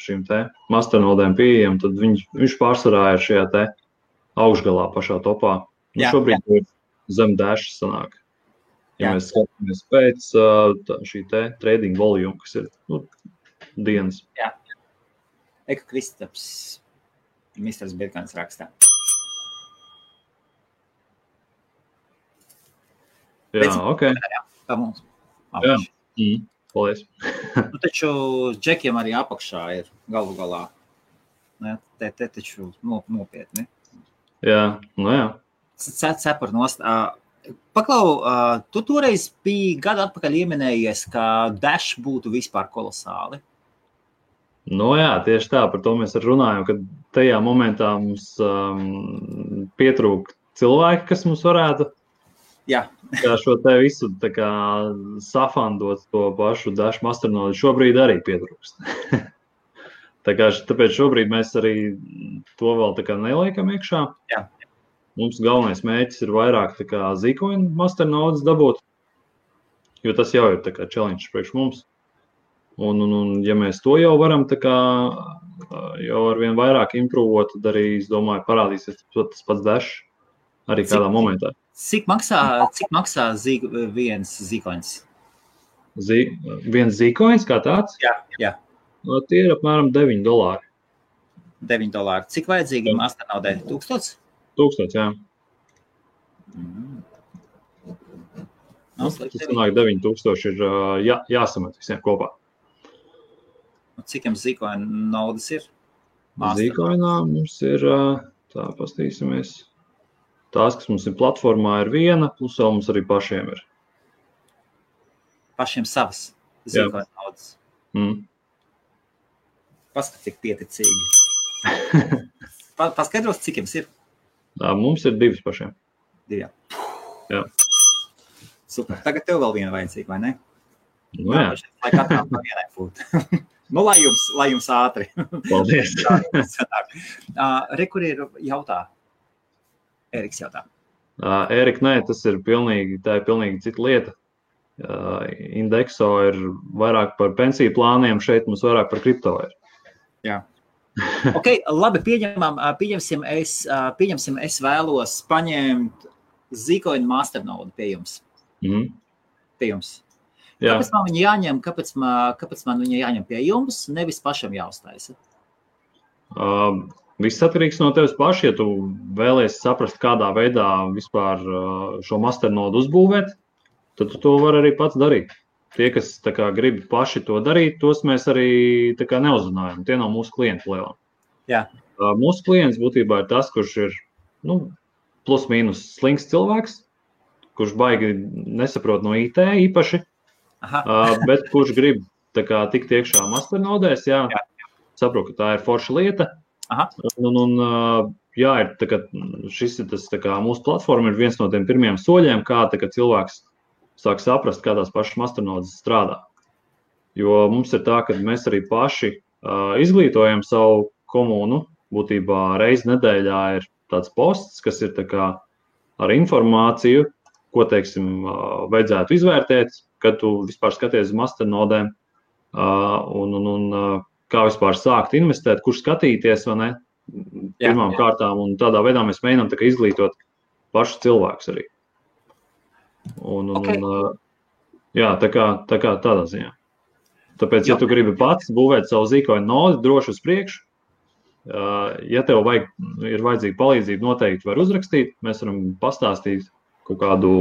šīm te Masternodēm pieejam, tad viņš pārsvarā ir šajā te augšgalā pašā topā. Šobrīd ir zem Dash sanāk. Ja mēs skatāmies pēc šī te trading volume, kas ir dienas. Jā. Eka Kristaps, Misters Bitcoins rakstā. Jā, ok. Tā mums. Jā, paldies. Taču džekiem arī apakšā ir galu galā. Te taču nopietni. Jā, jā. Cepar nost. Paklau, tu toreiz biji gadu atpakaļ ieminējies, ka Dash būtu vispār kolosāli. Jā, tieši tā, par to mēs arī runājam, ka tajā momentā mums pietrūk cilvēki, kas mums varētu šo te visu tā kā safandot to pašu Dash Masternode. Šobrīd arī pietrūkst. Tāpēc šobrīd mēs arī to vēl tā kā neliekam iekšā. Jā. Mums galvenais mērķis ir vairāk tā kā Zcoin Masternodes dabūt, jo tas jau ir tā kā challenge priekš mums. Un ja mēs to jau varam tā kā jau arvien vairāk improvot, tad arī, es domāju, parādīsies tas pats Dash arī kādā momentā. Cik maksā viens Zcoins? Viens Zcoins kā tāds? Jā. Tie ir apmēram $9. $9. Cik vajadzīgi Masternodē? 1000? 1000, jā. Tas sanāk 9000 ir jāsamet visiem kopā. Cik jums Zcoin naudas ir? Zcoinā mums ir, tā pastīsimies, tās, kas mums ir platformā, ir viena, plus vēl mums arī pašiem ir. Pašiem savas Zcoin naudas. Paskat, cik pieticīgi. Paskaidros, cik jums ir? Mums ir 2 pašiem. 2. Jā. Super. Tagad tev vēl viena vajadzīga, vai ne? Jā. Lai katram pa vienai būtu. Lai jums ātri. Paldies. Kur ir jautā? Eriks jautā. Erika, nē, tā ir pilnīgi cita lieta. Indexo ir vairāk par pensiju plāniem, šeit mums vairāk par kripto ir. Jā. Okay, labi, pieņemsim, es vēlos paņemt Zcoin Masternode pie jums. Pie jums. Kāpēc man viņa jāņem, kāpēc man viņa jāņem pie jums, nevis pašam jāuztaisa? Viss atkarīgs no tevis paši, ja tu vēlies saprast, kādā veidā vispār šo Masternodu uzbūvēt, tad tu to var arī pats darīt. Tie, kas tā kā grib paši to darīt, tos mēs arī tā kā neuzrunājam. Tie nav mūsu klienti lielā. Jā. Mūsu klients būtībā ir tas, kurš ir plus mīnus slings cilvēks, kurš baigi nesaprot no IT īpaši, bet kurš grib tā kā tikt iekšā Masternodēs, jā. Saprot, ka tā ir forša lieta. Ir tā kā šis ir tas tā kā mūsu platforma ir viens no tiem pirmiem soļiem, kā tā kā cilvēks sāk saprast, kā tās pašas Masternodes strādā. Jo mums ir tā, ka mēs arī paši izglītojam savu komunu. Būtībā reizi nedēļā ir tāds posts, kas ir tā kā ar informāciju, ko, teiksim, vajadzētu izvērtēt, kad tu vispār skaties uz Masternodēm un kā vispār sākt investēt, kur skatīties, vai ne, pirmām kārtām. Un tādā veidā mēs mēģinām tā kā izglītot pašu cilvēkus arī. Tā kā tādā ziņā. Tāpēc, ja tu gribi pats būvēt savu Zcoin nodi droši uz priekšu, ja tev ir vajadzīga palīdzība, noteikti var uzrakstīt, mēs varam pastāstīt kaut kādu,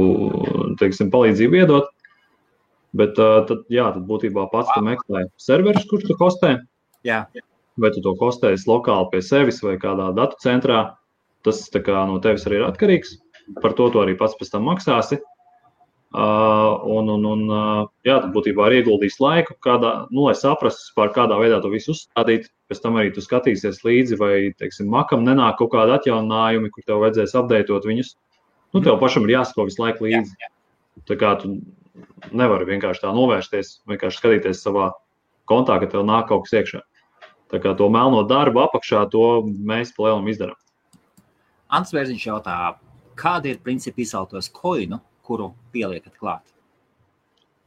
teiksim, palīdzību iedot, bet tad būtībā pats tu meklē serverus, kurš tu hostē, vai tu to hostēs lokāli pie sevis vai kādā datu centrā, tas tā kā no tevis arī ir atkarīgs, par to tu arī pats pēc tam maksāsi. Tad būtībā ir ieguldījis laiku, lai saprastu, par kādā veidā to visu uzstādīt. Pēc tam arī tu skatīsies līdzi, vai, teiksim, Macam nenāk kaut kādi atjauninājumi, kur tev vajadzēs updateot viņus. Tev pašam ir jāsako visu laiku līdzi. Tā kā tu nevari vienkārši tā novērsties, vienkārši skatīties savā kontā, ka tev nāk kaut kas iekšā. Tā kā to melno darbu apakšā, to mēs pa lielam izdarām. Ants Vērziņš jautā, kādi ir principi izceltos koinu, kuru pieliekat klāt?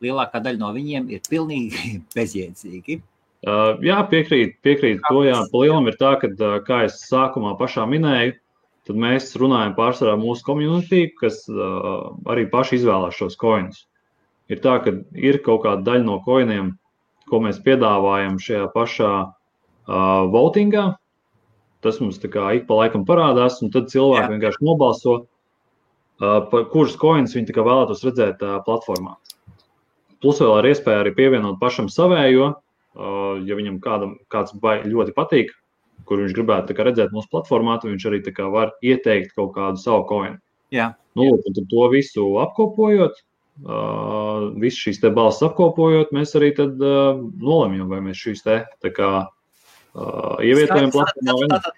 Lielākā daļa no viņiem ir pilnīgi bezjēdzīgi. Jā, piekrīt to, jā. Pa lielam ir tā, ka, kā es sākumā pašā minēju, tad mēs runājam pārsvarā mūsu community, kas arī paši izvēlās šos koinus. Ir tā, ka ir kaut kāda daļa no koiniem, ko mēs piedāvājam šajā pašā votingā. Tas mums tā kā ik pa laikam parādās, un tad cilvēki vienkārši nobalso, kurus koinus viņi tā kā vēlētos redzēt platformā. Plus vēl ir iespēja arī pievienot pašam savējo, ja viņam kāds ļoti patīk, kur viņš gribētu tā kā redzēt mūsu platformā, tad viņš arī tā kā var ieteikt kaut kādu savu koinu. Jā. Tad to visu apkopojot, visu šīs te balsis apkopojot, mēs arī tad nolemjam, vai mēs šīs te tā kā ievietojam platformā vai ne. Tātad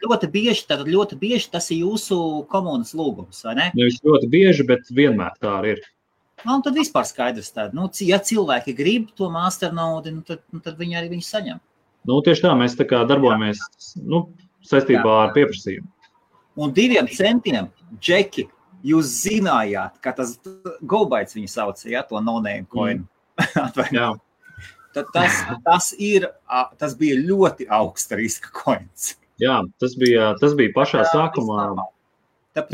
ļoti bieži tas ir jūsu komunas lūgums, vai ne? Nevis ļoti bieži, bet vienmēr tā arī ir. Un tad vispār skaidrs tāda. Ja cilvēki grib to Masternode, tad viņi arī viņu saņem. Tieši tā, mēs tā kā darbojamies saistībā ar pieprasījumu. Un 2 centiem, Džeki, jūs zinājāt, ka tas GoBytes viņu sauc, to no-name coin. Jā. Tad tas bija ļoti augsta riska coins. Jā, tas bija pašā sākumā. Tas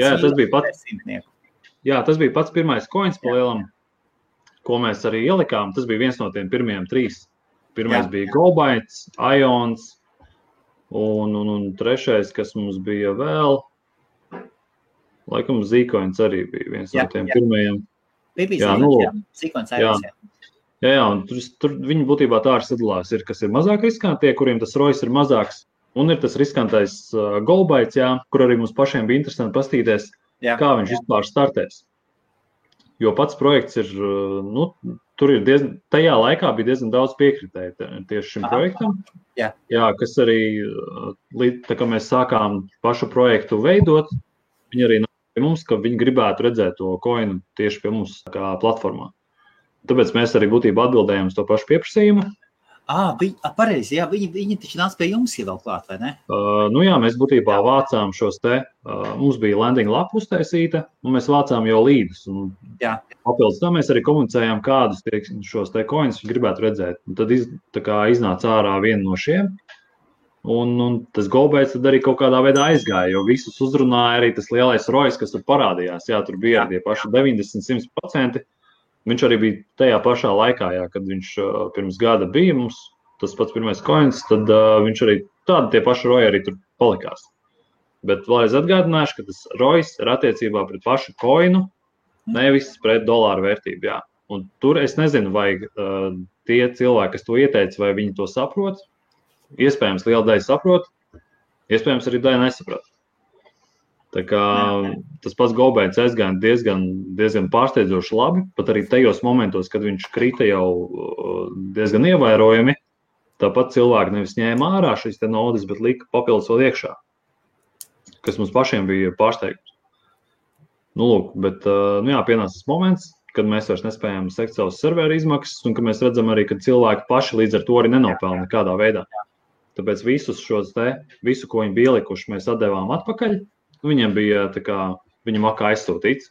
bija pats pirmais coins pa lielam, ko mēs arī ielikām. Tas bija viens no tiem pirmajiem 3. Pirmais bija GoBytes, Ions un trešais, kas mums bija vēl, laikam Zcoins arī bija viens no tiem pirmajiem. Zcoins Ions, Jā, un tur viņi būtībā tā arī sadalās. Ir, kas ir mazāk riskantie, kuriem tas ROIs ir mazāks, un ir tas riskantais GoBytes, kur arī mums pašiem bija interesanti pastīties, kā viņš vispār startēs. Jo pats projekts ir, tur ir tajā laikā bija diezgan daudz piekritēju tieši šim projektam. Jā, kas arī, tā kā mēs sākām pašu projektu veidot, viņi arī nāk pie mums, ka viņi gribētu redzēt to koinu tieši pie mums kā platformā. Tāpēc mēs arī būtībā atbildējam uz to pašu pieprasījumu. Pareizi, jā, viņi taču nāc pie jums vēl klāt, vai ne? Nu jā, mēs būtībā vācām šos te, mums bija landing lapa uztaisīta, un mēs vācām jau līdus. Papildus tam mēs arī komunicējām, kādus šos te coins gribētu redzēt. Un tad iznāca ārā viena no šiem, un tas GoBaits tad arī kaut kādā veidā aizgāja, jo visus uzrunāja arī tas lielais ROIs, kas tur parādījās. Jā, tur bija tie paši 90-100%. Viņš arī bija tajā pašā laikā, jā, kad viņš pirms gada bija mums, tas pats pirmais coins, tad viņš arī tādi tie paši ROI arī tur palikās. Bet vēlreiz atgādināšu, ka tas ROIs ir attiecībā pret pašu coinu, nevis pret dolāru vērtību. Jā. Un tur es nezinu, vai tie cilvēki, kas to ieteica, vai viņi to saprot. Iespējams, liela daļa saprot, iespējams, arī daļa nesaprot. Tā kā tas pats GoBaits aizgāja diezgan pārsteidzoši labi, pat arī tajos momentos, kad viņš krita jau diezgan ievērojami, tāpat cilvēki nevis ņēma ārā šīs te naudas, bet lika papildus vēl iekšā, kas mums pašiem bija pārsteigums. Nu, lūk, bet pienāca tas moments, kad mēs vairs nespējam sekt savus serveru izmaksas, un ka mēs redzam arī, ka cilvēki paši līdz ar to arī nenopelna nekādā veidā. Tāpēc visu, ko viņi bija ielikuši, mēs atdevām atpakaļ. Viņiem bija viņa makā aizsūtīts.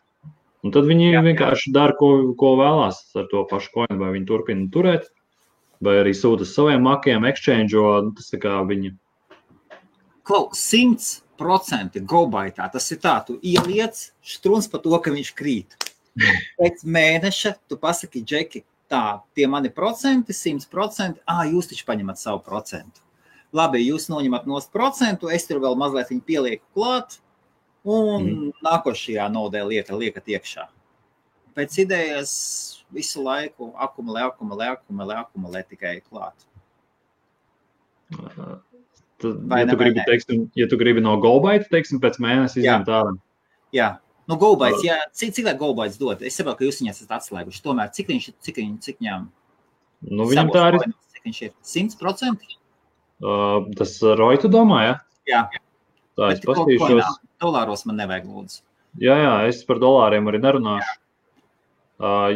Un tad viņi vienkārši dara, ko vēlās ar to pašu coinu, vai viņi turpina turēt, vai arī sūta saviem makiem, exchange'o, tas tā kā viņi. Klau, 100% GoBaitā, tas ir tā, tu ieliec štruns par to, ka viņš krīt. Pēc mēneša tu pasaki, Džeki, tā, tie mani procenti, 100%, jūs taču paņemat savu procentu. Labi, jūs noņemat nost procentu, es tur vēl mazliet viņu pielieku klāt, un nākošajā naudē liekat iekšā. Pēc idejas visu laiku akumulē tikai klāt. Ja tu gribi no GoBaita, pēc mēnesi izņemt ārā. Jā, no GoBaits, jā, cik lai GoBaits dod? Es saprotu, ka jūs viņas esat atslēguši. Tomēr, cik viņam? Nu, viņam tā ir. Cik viņš ir? 100%? Tas ROI tu domā, ja? Jā. Tā, es pastīšos. Dolāros man nevajag lūdzu. Jā, es par dolāriem arī nerunāšu.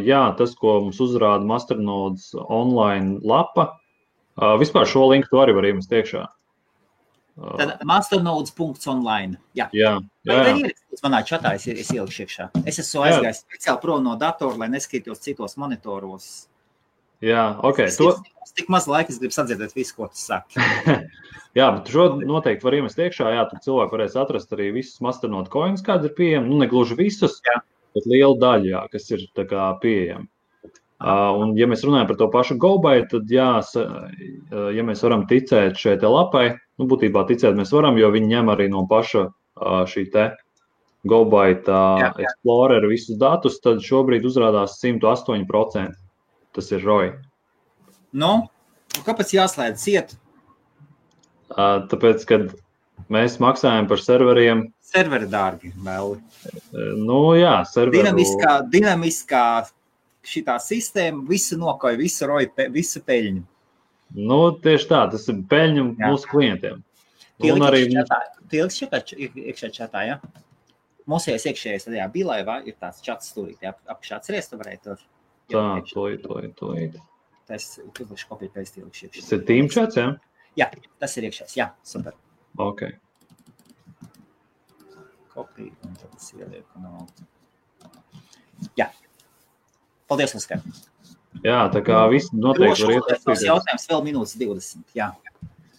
Jā, tas, ko mums uzrāda Masternodes online lapa, vispār šo linku tu arī var iemest iekšā. Tad masternodes.online. Jā. Manā čatā es ielikšu iekšā. Es esmu aizgājis speciāli prom no datora, lai neskatītos citos monitoros. Jā, ok. Tik maz laika, es gribu sadzirdēt visu, ko tu saki. Jā, bet šo noteikti var iemest iekšā. Jā, tad cilvēki varēs atrast arī visus Masternode coins, kāds ir pieejami. Nu, ne gluži visus, bet liela daļa, jā, kas ir tā kā pieejami. Un, ja mēs runājam par to pašu GoBait, tad jā, ja mēs varam ticēt šai te lapai, nu, būtībā ticēt mēs varam, jo viņi ņem arī no paša šī te GoBait Explorer visus datus, tad šobrīd uzrādās 108%. Tas ir ROI. Nu, kāpēc jāslēdz ciet? Tāpēc, kad mēs maksājam par serveriem. Serveri dārgi, vēl. Nu, jā, serveru. Dinamiskā šitā sistēma, visu nokoja, visu ROI, visu peļņu. Nu, tieši tā, tas ir peļņu mūsu klientiem. Tie ilgi iekšā čatā, jā? Mūsējais iekšējais tajā bilaivā ir tāds čats stūrīt, apakšā atceries, tu varēji tur. Tā, tolīt. Tas uzlikšu kopiju pēc iekšā. Tas ir team chats, jā? Jā, tas ir iekšējais, jā, super. Ok. Kopiju, un tad es ielieku no... Jā. Paldies, Oskar. Jā, tā kā visi noteikti var iesaistīties. Jautājums vēl minūtes 20, jā.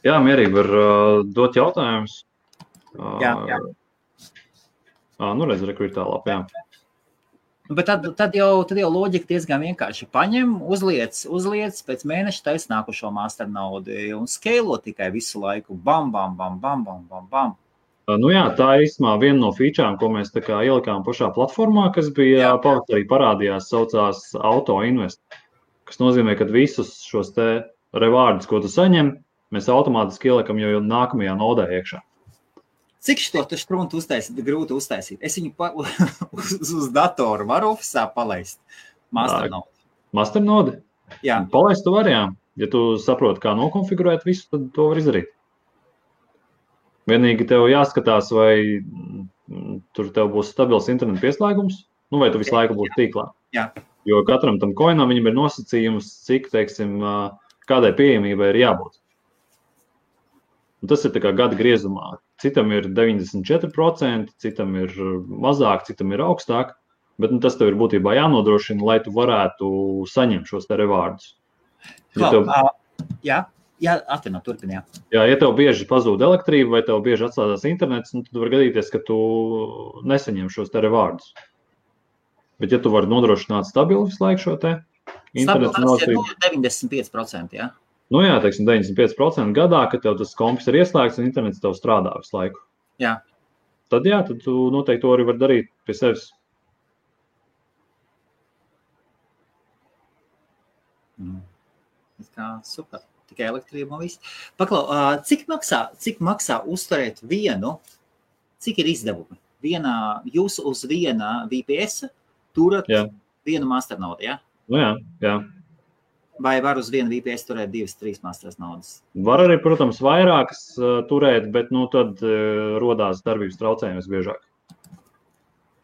Jā, mierīgi var dot jautājumus. Jā. Nu, redz, rekur ir tā lapa, jā. Bet tad jau loģika diezgan vienkārši paņem, uzliec, pēc mēneša taisa nākošo Masternode un scalo tikai visu laiku. Bam. Nu jā, tā ir īstenībā viena no featurām, ko mēs tā kā ielikām pašā platformā, kas bija pavasarī parādījās, saucās Auto Invest, kas nozīmē, ka visus šos te rewardus, ko tu saņem, mēs automātiski ielikam jau nākamajā nodē iekšā. Cik šo štruntu grūti uztaisīt? Es viņu uz datoru varu ofisā palaist. Masternode. Masternode? Jā. Palaist tu vari, jā. Ja tu saproti, kā nokonfigurēt visu, tad to var izdarīt. Vienīgi tev jāskatās, vai tur tev būs stabils internetu pieslēgums, nu vai tu visu laiku būsi tīklā. Jā. Jo katram tam coinam viņam ir nosacījums, cik, teiksim, kādai pieejamībai ir jābūt. Un tas ir tā kā gada griezumā. Citam ir 94%, citam ir mazāk, citam ir augstāk, bet tas tev ir būtībā jānodrošina, lai tu varētu saņemt šos te revārdus. Turpini, jā. Jā, ja tev bieži pazūd elektrība vai tev bieži atslēdzās internets, tad var gadīties, ka tu nesaņem šos te revārdus. Bet ja tu vari nodrošināt stabilu visu laiku šo te internetu elektrību. Tas ir 95%, jā? Nu jā, teiksim, 95% gadā, kad tev tas kompis ir ieslēgts un internets tev strādā visu laiku. Jā. Tad tu noteikti to arī var darīt pie sevis. Super. Tikai elektrība un viss. Paklau, cik maksā uzturēt vienu, cik ir izdevumi? Jūs uz viena VPS turat vienu masternodu, jā? Nu jā. Vai var uz vienu VPS turēt 2-3 masternodas? Var arī, protams, vairākas turēt, bet tad rodās darbības traucējumi visbiežāk.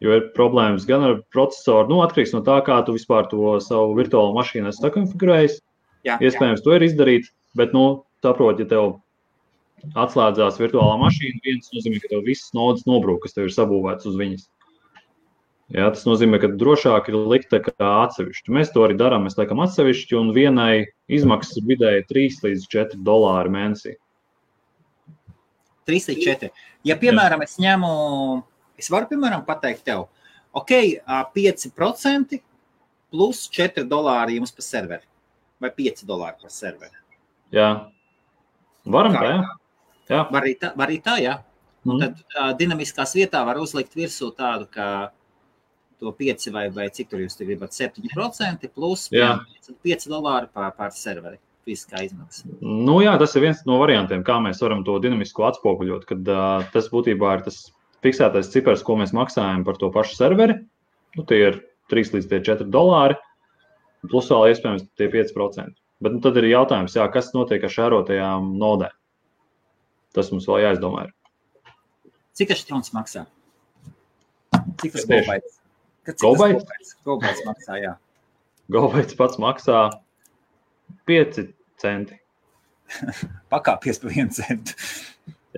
Jo ir problēmas gan ar procesoru, atkarīgs no tā, kā tu vispār to savu virtuālo mašīnu esi sakonfigurējis. Iespējams, to ir izdarīt, bet, saprot, ja tev atslēdzās virtuālā mašīna, viens nozīmē, ka tev visas nodas nobrūk, kas tev ir sabūvētas uz viņas. Jā, tas nozīmē, ka drošāk ir likt kā atsevišķi. Mēs to arī darām, mēs liekam atsevišķi, un vienai izmaksas ir vidēji $3 līdz $4 mēnesī. 3 līdz 4. Ja, piemēram, es varu, piemēram, pateikt tev, 5% plus $4 jums par serveri, vai $5 par serveri. Jā. Varam tā, jā. Var arī tā, jā. Un tad dinamiskās vietā var uzlikt virsū tādu, ka to 5 vai cik tur jūs gribat 7% plus $5 par serveri fiziskā izmaksa. Jā, tas ir viens no variantiem, kā mēs varam to dinamisko atspoguļot, kad tas būtībā ir tas fiksētais cipars, ko mēs maksājam par to pašu serveri. Tie ir $3 līdz $4, plus vēl iespējams tie 5%. Bet tad ir jautājums, kas notiek ar šērotajām nodēm. Tas mums vēl jāizdomā ir. Cik štrons maksā? Cik tas GoBytes? GoBytes maksā, jā. GoBytes pats maksā 5 centi. Pakāpies par 1 centu.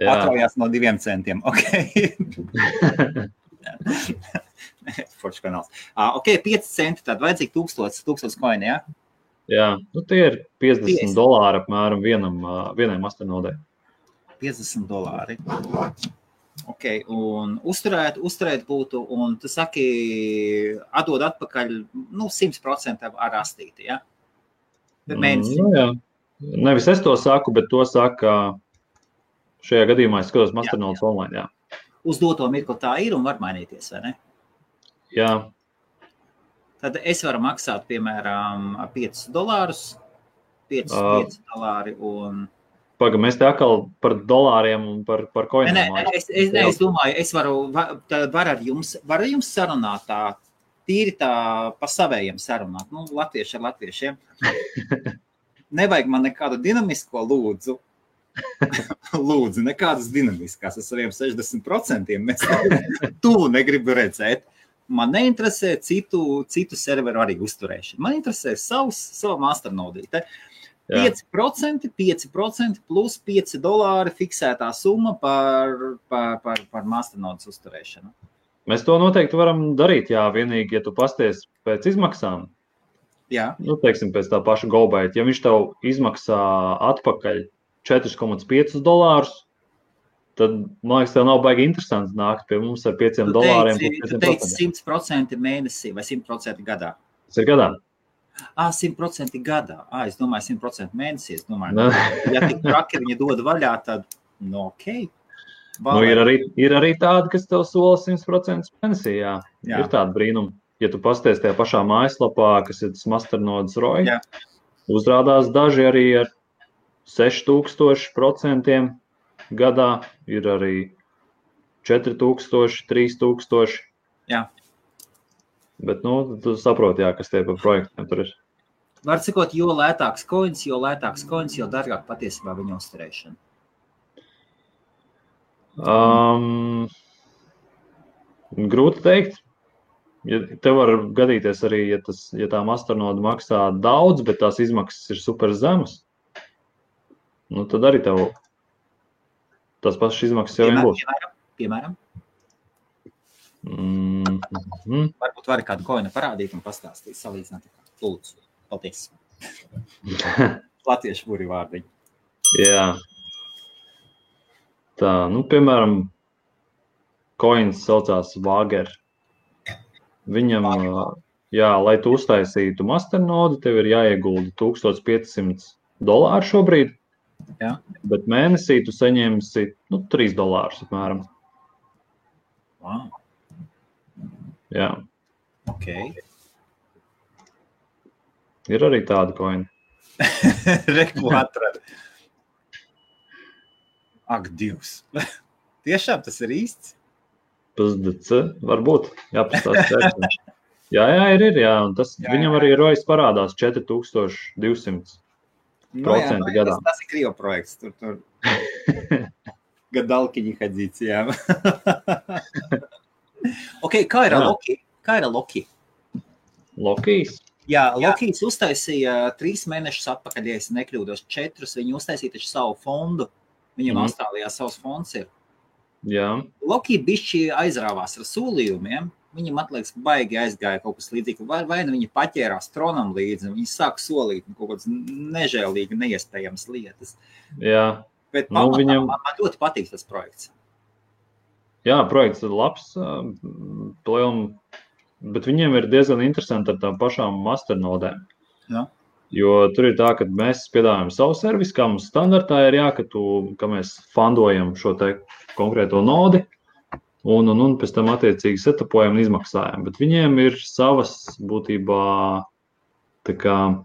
Atraujās no 2 centiem. Foršs kanāls. 5 centi, tad vajadzīgi 1000 koini, jā? Jā, tie ir $50 apmēram vienai masternodai. $50. Un uzturēt būtu, un tu saki, atdod atpakaļ, 100% ar astīti, ja? Mēnesī. Jā. Nevis es to saku, bet to saka, šajā gadījumā es skatos masternodes online, jā. Uz doto mirkli tā ir un var mainīties, vai ne? Jā. Tad es varu maksāt, piemēram, $5, $5 un... Paga, mēs te atkal par dolāriem un par koiniem. Es domāju, es varu ar jums sarunāt tā, tīri tā pa savējiem sarunāt. Latvieši ar latviešiem. Nevajag man nekādu dinamisko lūdzu. Lūdzu, nekādas dinamiskās ar saviem 60%. Mēs tuvu negribu redzēt. Man neinteresē citu serveru arī uzturēšanu. Man interesē savu masternodīte. 5% plus $5 fiksētā summa par masternodes uzturēšanu. Mēs to noteikti varam darīt, vienīgi, ja tu pasties pēc izmaksām. Jā. Teiksim, pēc tā paša GoByte. Ja viņš tev izmaksā atpakaļ $4,5, tad, man liekas, tev nav baigi interesanti nākt pie mums ar $5. Tu teici 100% mēnesī vai 100% gadā? Tas ir gadā. 100% gadā. Es domāju, 100% mēnesī. Es domāju, ja tik traki viņi dod vaļā, tad, okei. Ir arī tādi, kas tev sola 100% mēnesī, jā. Ir tāda brīnuma. Ja tu pasties tajā pašā mājaslapā, kas ir tas masternodes ROI, uzrādās daži arī ar 6000% gadā, ir arī 4000, 3000. Jā. Bet, tu saproti, kas tie par projektiem tur ir. Var cikot, jo lētāks coins, jo dārgāk patiesībā viņa uzturēšana. Grūti teikt. Tev var gadīties arī, ja tā masternode maksā daudz, bet tās izmaksas ir super zemas. nu tad arī tev tas pašas izmaksas jau vien būs. Piemēram? Varbūt vari kādu koinu parādīt un pastāstīt, salīdzināt. Lūdzu, paldies. Latviešu burvi vārdiņi. Jā. Tā, nu, piemēram, koins saucās Vāger. Viņam, jā, lai tu uztaisītu masternodu, tev ir jāiegulda $1500 šobrīd, jā. Bet mēnesī tu saņemsi $3 apmēram. Wow. Jā. Ok. Ir arī tāda koina. Reku atrada. Ak, Dievs. Tiešām tas ir īsts? PSDC, varbūt. Jāpastāst. Jā, ir, jā. Un tas jā. Viņam arī rojas parādās 4200% gadā. Tas ir Krievu projekts. Tur. Gadalkiņi hadzīts, jā. Ok, kā ir Loki? Lokijs? Jā, Lokijs uztaisīja 3 mēnešus atpakaļ, ja es nekļūdos, 4. Viņi uztaisīja taču savu fondu. Viņam Austrālijā savs fonds ir. Jā. Loki bišķi aizrāvās ar solījumiem. Viņam atliekas baigi aizgāja kaut kas līdzīgi. Vai nu viņi paķērās tronam līdzi, un viņi sāk solīt kaut kādas nežēlīgi, neiespējamas lietas. Jā. Bet man ļoti patīk tas projekts. Jā, projekts ir labs, bet viņiem ir diezgan interesanti ar tām pašām masternodēm. Jā. Jo tur ir tā, ka mēs piedāvājam savu servisu, kā mums standartā ir ka mēs fundojam šo te konkrēto nodi un pēc tam attiecīgi setupojam un izmaksājam. Bet viņiem ir savas būtībā tā kā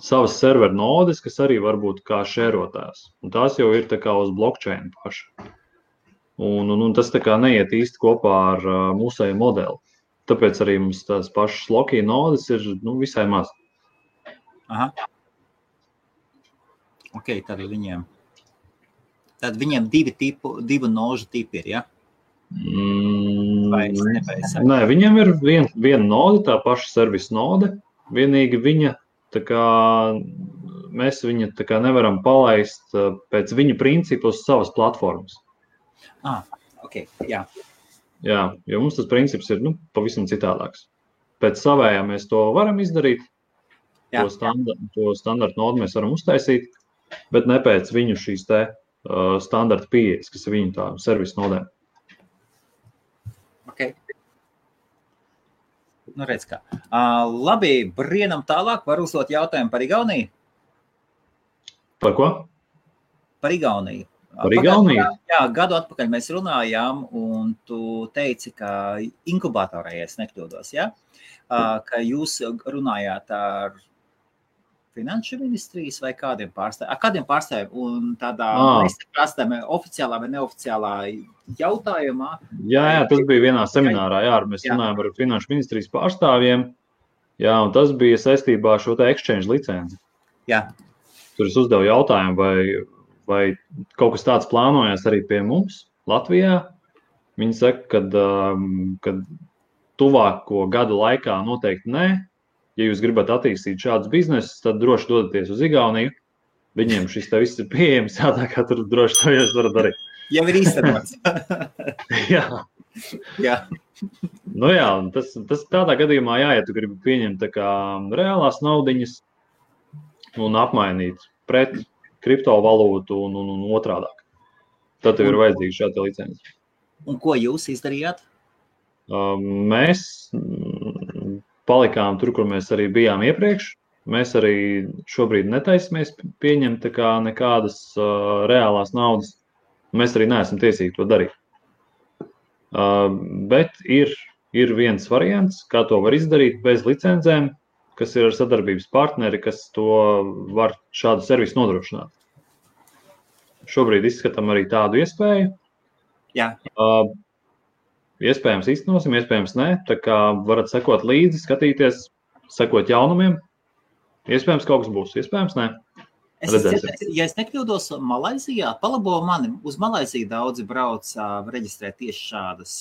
savas serveru nodes, kas arī var būt kā šērotājs. Un tās jau ir tā kā uz blockchain paši. Un tas tā kā neiet īsti kopā ar mūsēju modeli. Tāpēc arī mums tās pašas Loki nodes ir visai maz. Aha. Ok, tad viņiem divu nožu tipi ir, ja? Nē, viņiem ir viena node, tā paša servisa node. Vienīgi viņa, tā kā mēs viņa tā kā nevaram palaist pēc viņa principu uz savas platformas. Ok, jā. Jā, jo mums tas princips ir pavisam citādāks. Pēc savējā mēs to varam izdarīt. To standartu nodu mēs varam uztaisīt, bet ne pēc viņu šīs te standarta pieejas, kas ir viņu tā servisa nodēm. Ok. Nu, redz kā. Labi, brienam tālāk. Var uzdot jautājumu par Igauniju? Par ko? Par Igauniju. Par Igauniju? Jā, gadu atpakaļ mēs runājām, un tu teici, ka inkubatorā, ja es nekļūdos, ja? Ka jūs runājāt ar Finanšu ministrijas vai kādiem pārstāvjiem un tādā oficiālā vai neoficiālā jautājumā? Jā, tas bija vienā seminārā, mēs runājām ar Finanšu ministrijas pārstāvjiem, jā, un tas bija saistībā ar šo te exchange licenci. Jā. Tur es uzdevu jautājumu, vai kaut kas tāds plānojas arī pie mums Latvijā. Viņi saka, ka tuvāko gadu laikā noteikti nē. Ja jūs gribat attīstīt šādus biznesus, tad droši dodaties uz Igauniju. Viņiem šis te viss ir pieejams, tā kā tur droši to jūs varat darīt. Jau ir īstenots. Jā. Nu jā, tas tādā gadījumā, ja tu gribi pieņemt tā kā reālās naudiņas un apmainīt pret kriptovalūtu un otrādāk. Tad tev ir vajadzīga šāda licenci. Un ko jūs izdarījāt? Mēs palikām tur, kur mēs arī bijām iepriekš. Mēs arī šobrīd netaisamies pieņemt tā kā nekādas reālās naudas. Mēs arī neesam tiesīgi to darīt. Bet ir viens variants, kā to var izdarīt bez licencēm, kas ir ar sadarbības partneri, kas to var šādu servisu nodrošināt. Šobrīd izskatām arī tādu iespēju. Jā. Iespējams īstenosim, iespējams nē. Tā kā varat sekot līdzi, skatīties, sekot jaunumiem. Iespējams kaut kas būs, iespējams nē. Ja es nekļūdos Malaizijā, palabo mani, uz Malaiziju daudzi brauc reģistrēt tieši šādas,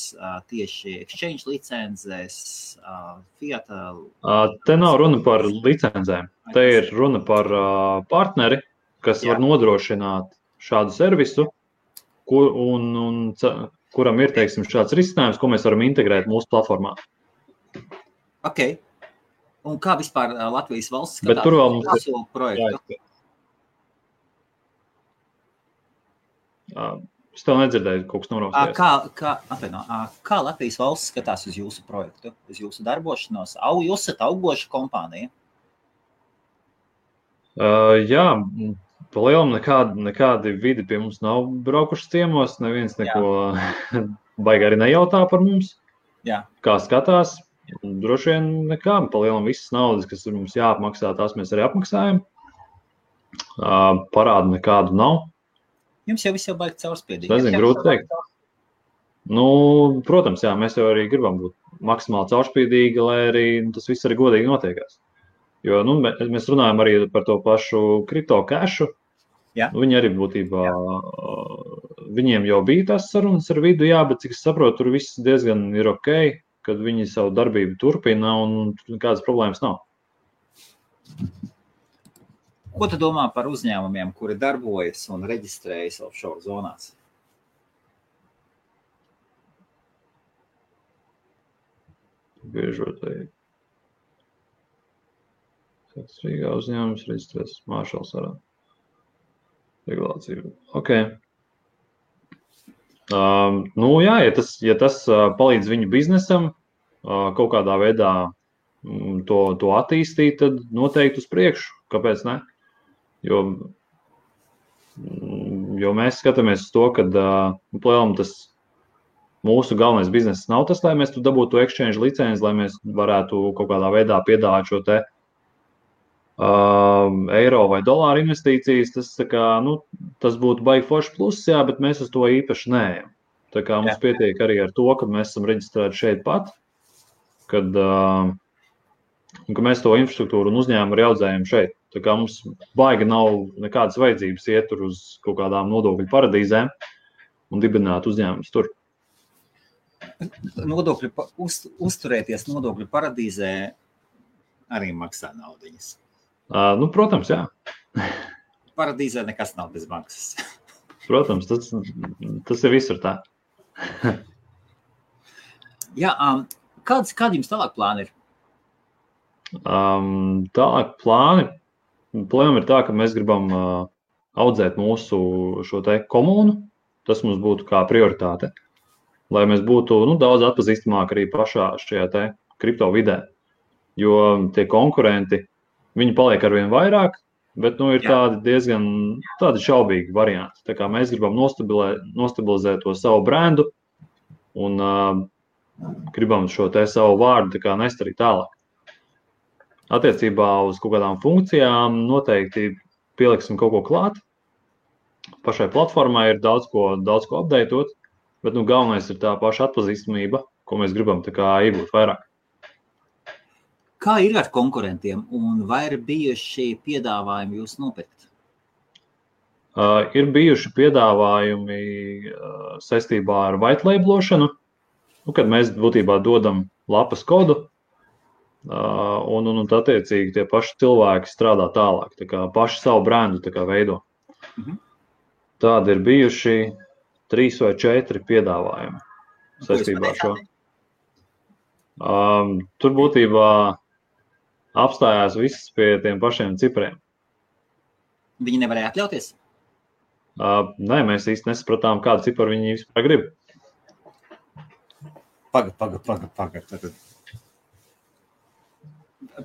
tieši exchange licencēs, fiat. Te nav runa par licencēm. Te ir runa par partneri, kas var nodrošināt šādu servisu, kuram ir, teiksim, šāds risinājums, ko mēs varam integrēt mūsu platformā. Ok. Un kā vispār Latvijas valsts skatās uz mūsu projektu? Es tev nedzirdēju, kaut kas noraustījās. Kā Latvijas valsts skatās uz jūsu projektu, uz jūsu darbošanos? Jūs esat augoša kompānija? Jā, pa lielam nekādi vidi pie mums nav braukuši ciemos, neviens neko baigi arī nejautā par mums. Jā. Kā skatās, droši vien nekā, pa lielam visas naudas, kas mums jāapmaksā, tās mēs arī apmaksājam. Parādu nekādu nav. Jums jau viss jau baigi caurspiedīgi. Nezinu, grūti teikt. Nu, protams, jā, mēs jau arī gribam būt maksimāli caurspiedīgi, lai arī tas viss arī godīgi notiekās. Jo, nu, mēs runājam arī par to pašu kripto cašu. Viņi arī būtībā, viņiem jau bija tās sarunas ar vidu, jā, bet cik es saprotu, tur viss diezgan ir ok, kad viņi savu darbību turpina un nekādas problēmas nav. Ko tu domā par uzņēmumiem, kuri darbojas un reģistrējas offshore zonās? Biežotai. Kāds Rīgā uzņēmums reģistrēs Māršals arā. Regulācija. Ok. Nu jā, ja tas palīdz viņu biznesam kaut kādā veidā to attīstīt, tad noteikti uz priekšu. Kāpēc ne? Jo mēs skatāmies uz to, ka tas mūsu galvenais bizness nav tas, lai mēs tu dabūtu exchange licenci, lai mēs varētu kaut kādā veidā piedāvāt šo te eiro vai dolāru investīcijas. Tas būtu baigi forši pluss, jā, bet mēs uz to īpaši neejam. Tā kā mums pietiek arī ar to, ka mēs esam reģistrēti šeit pat, kad mēs to infrastruktūru un uzņēmumu arī audzējam šeit. Tā kā mums baigi nav nekādas vajadzības iet tur uz kaut kādām nodokļu paradīzēm un dibināt uzņēmumus tur. Uzturēties nodokļu paradīzē arī maksā naudiņas. Nu, protams, jā. Paradīzē nekas nav bez maksas. Protams, tas ir visur tā. Jā, kādi jums tālāk plāni ir? Tālāk plāni ir tā, ka mēs gribam audzēt mūsu šo te komunu. Tas mums būtu kā prioritāte. Lai mēs būtu daudz atpazīstamāk arī pašā šajā te kripto vidē. Jo tie konkurenti, viņi paliek arvien vairāk, bet ir tādi diezgan šaubīgi varianti. Tā kā mēs gribam nostabilizēt to savu brendu un gribam šo te savu vārdu nest arī tālāk. Attiecībā uz kaut kādām funkcijām noteikti pieliksim kaut ko klāt. Pašai platformai ir daudz ko updateot, bet galvenais ir tā paša atpazīstamība, ko mēs gribam iegūt vairāk. Kā ir ar konkurentiem un vai ir bijuši piedāvājumi jūs nopirkt? Ir bijuši piedāvājumi saistībā ar white labelošanu, kad mēs būtībā dodam lapas kodu un attiecīgi tie paši cilvēki strādā tālāk, tā kā paši savu brendu veido. Tādi ir bijuši 3 vai 4 piedāvājumi saistībā ar šo. Tur būtībā apstājās viss pie tiem pašiem cipriem. Viņi nevarēja atļauties? Nē, mēs īsti nesapratām, kādu ciparu viņi vispār grib. Paga.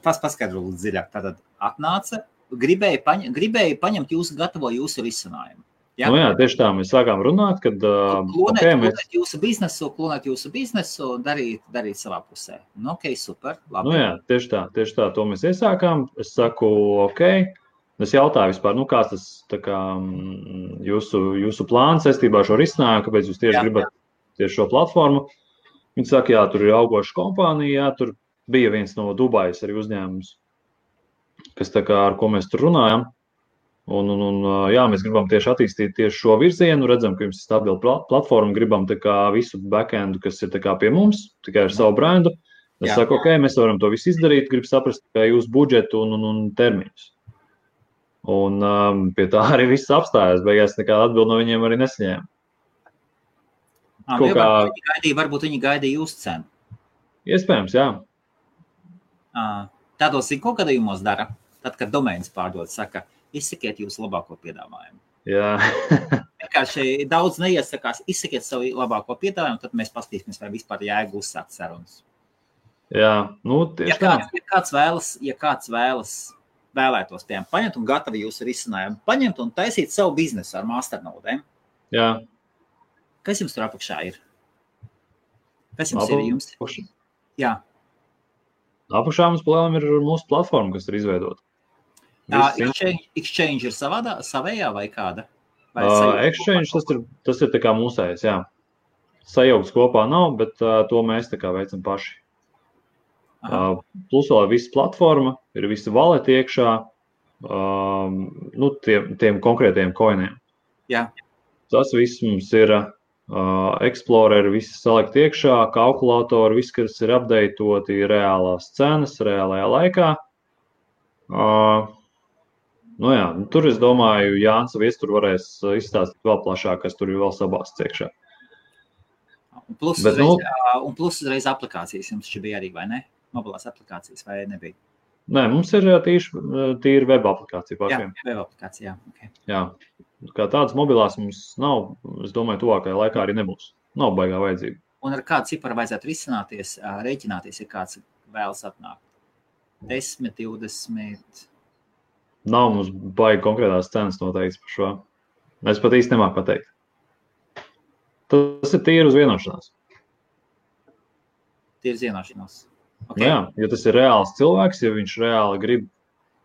Paskaidro lūdzu dziļāk. Tātad atnāca, gribēja paņemt jūsu risinājumu. Ja? Jā, tieši tā, mēs sākām runāt, kad klonēt jūsu biznesu, darīt savā pusē. Ok, super, labi. Jā, tieši tā, to mēs iesākām. Es saku, ok, es jautāju vispār, kāds tas jūsu plāns saistībā ar šo risinājumu, kāpēc jūs tieši gribat tieši šo platformu. Viņi saka, jā, tur ir augoša kompānija, tur bija viens no Dubajas arī uzņēmums, kas ar ko mēs tur runājam. Jā, mēs gribam tieši attīstīt tieši šo virzienu, redzam, ka jums ir stabila platforma, gribam visu backendu, kas ir pie mums, tikai ar savu brendu. Es saku, ok, mēs varam to visu izdarīt, gribu saprast jūsu budžetu un termiņus. Un pie tā arī viss apstājās. Beigās nekāda atbilde no viņiem arī nesaņēma. Varbūt viņi gaidīja jūsu cenu. Iespējams, jā. Tādos ir kaut gadījumos dara. Tad, kad domēns pārdod, saka, izsakiet jūsu labāko piedāvājumu. Jā. Vienkārši daudz neiesakās, izsakiet savu labāko piedāvājumu, tad mēs paskatīsimies, vai vispār jēga uzsākt sarunas. Jā, tieši tā. Ja kāds vēlētos, piemēram, paņemt un gatavi jūsu risinājumu, paņemt un taisīt savu biznesu ar masternodēm. Jā. Kas jums tur apakšā ir? Kas jums ir jums? Jā. Apakšā mums palēlam ir mūsu platforma, kas ir izveidota. Exchange ir savējā vai kāda? Exchange tas ir tā kā mūsējais, jā. Sajaukts kopā nav, bet to mēs tā kā veicam paši. Plus vēl visa platforma, ir visa valeti iekšā, tiem konkrētiem coiniem. Jā. Tas viss mums ir Explorer, visi salikt iekšā, kalkulatori, viss, kas ir updatoti, reālās cenas, reālajā laikā. Tur es domāju, Jānis Viestur varēs izstāstīt vēl plašāk, kas tur ir vēl sabāsts iekšā. Un plus uzreiz aplikācijas jums šī bija arī, vai ne? Mobilās aplikācijas, vai nebija? Nē, mums ir tīri web aplikācija pašiem. Jā, web aplikācija, jā. Okay. Jā, kā tādas mobilās mums nav, es domāju, tuvākajā laikā arī nebūs. Nav baigā vajadzība. Un ar kādu ciparu vajadzētu rēķināties, ja kāds vēlas atnākt? 10, 20... Nav mums baigi konkrētās cenas noteikts par šo. Es pat īsti nemāku pateikt. Tas ir tīri uz vienošanās. Tīri uz vienošanās. Okay. Jā, ja tas ir reāls cilvēks, ja viņš reāli grib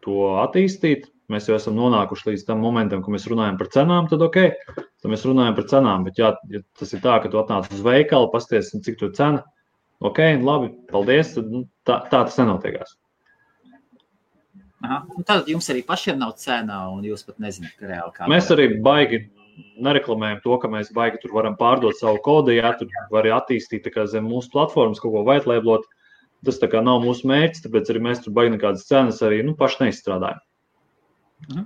to attīstīt, mēs jau esam nonākuši līdz tam momentam, ka mēs runājam par cenām, tad ok, tad mēs runājam par cenām, bet ja tas ir tā, ka tu atnāc uz veikalu, pasties, cik tu cena, ok, labi, paldies, tad tā tas nenotiekās. Aha. Un tad jums arī pašiem nav cena, un jūs pat nezināt, ka reāli kā. Mēs arī baigi nereklamējam to, ka mēs baigi tur varam pārdot savu kodu, ja tur var attīstīt tā kā zem mūsu platformas kaut ko whitelabelot. Tas tā kā nav mūsu mērķis, tāpēc arī mēs tur baigi nekādas cenas arī paši neizstrādājam.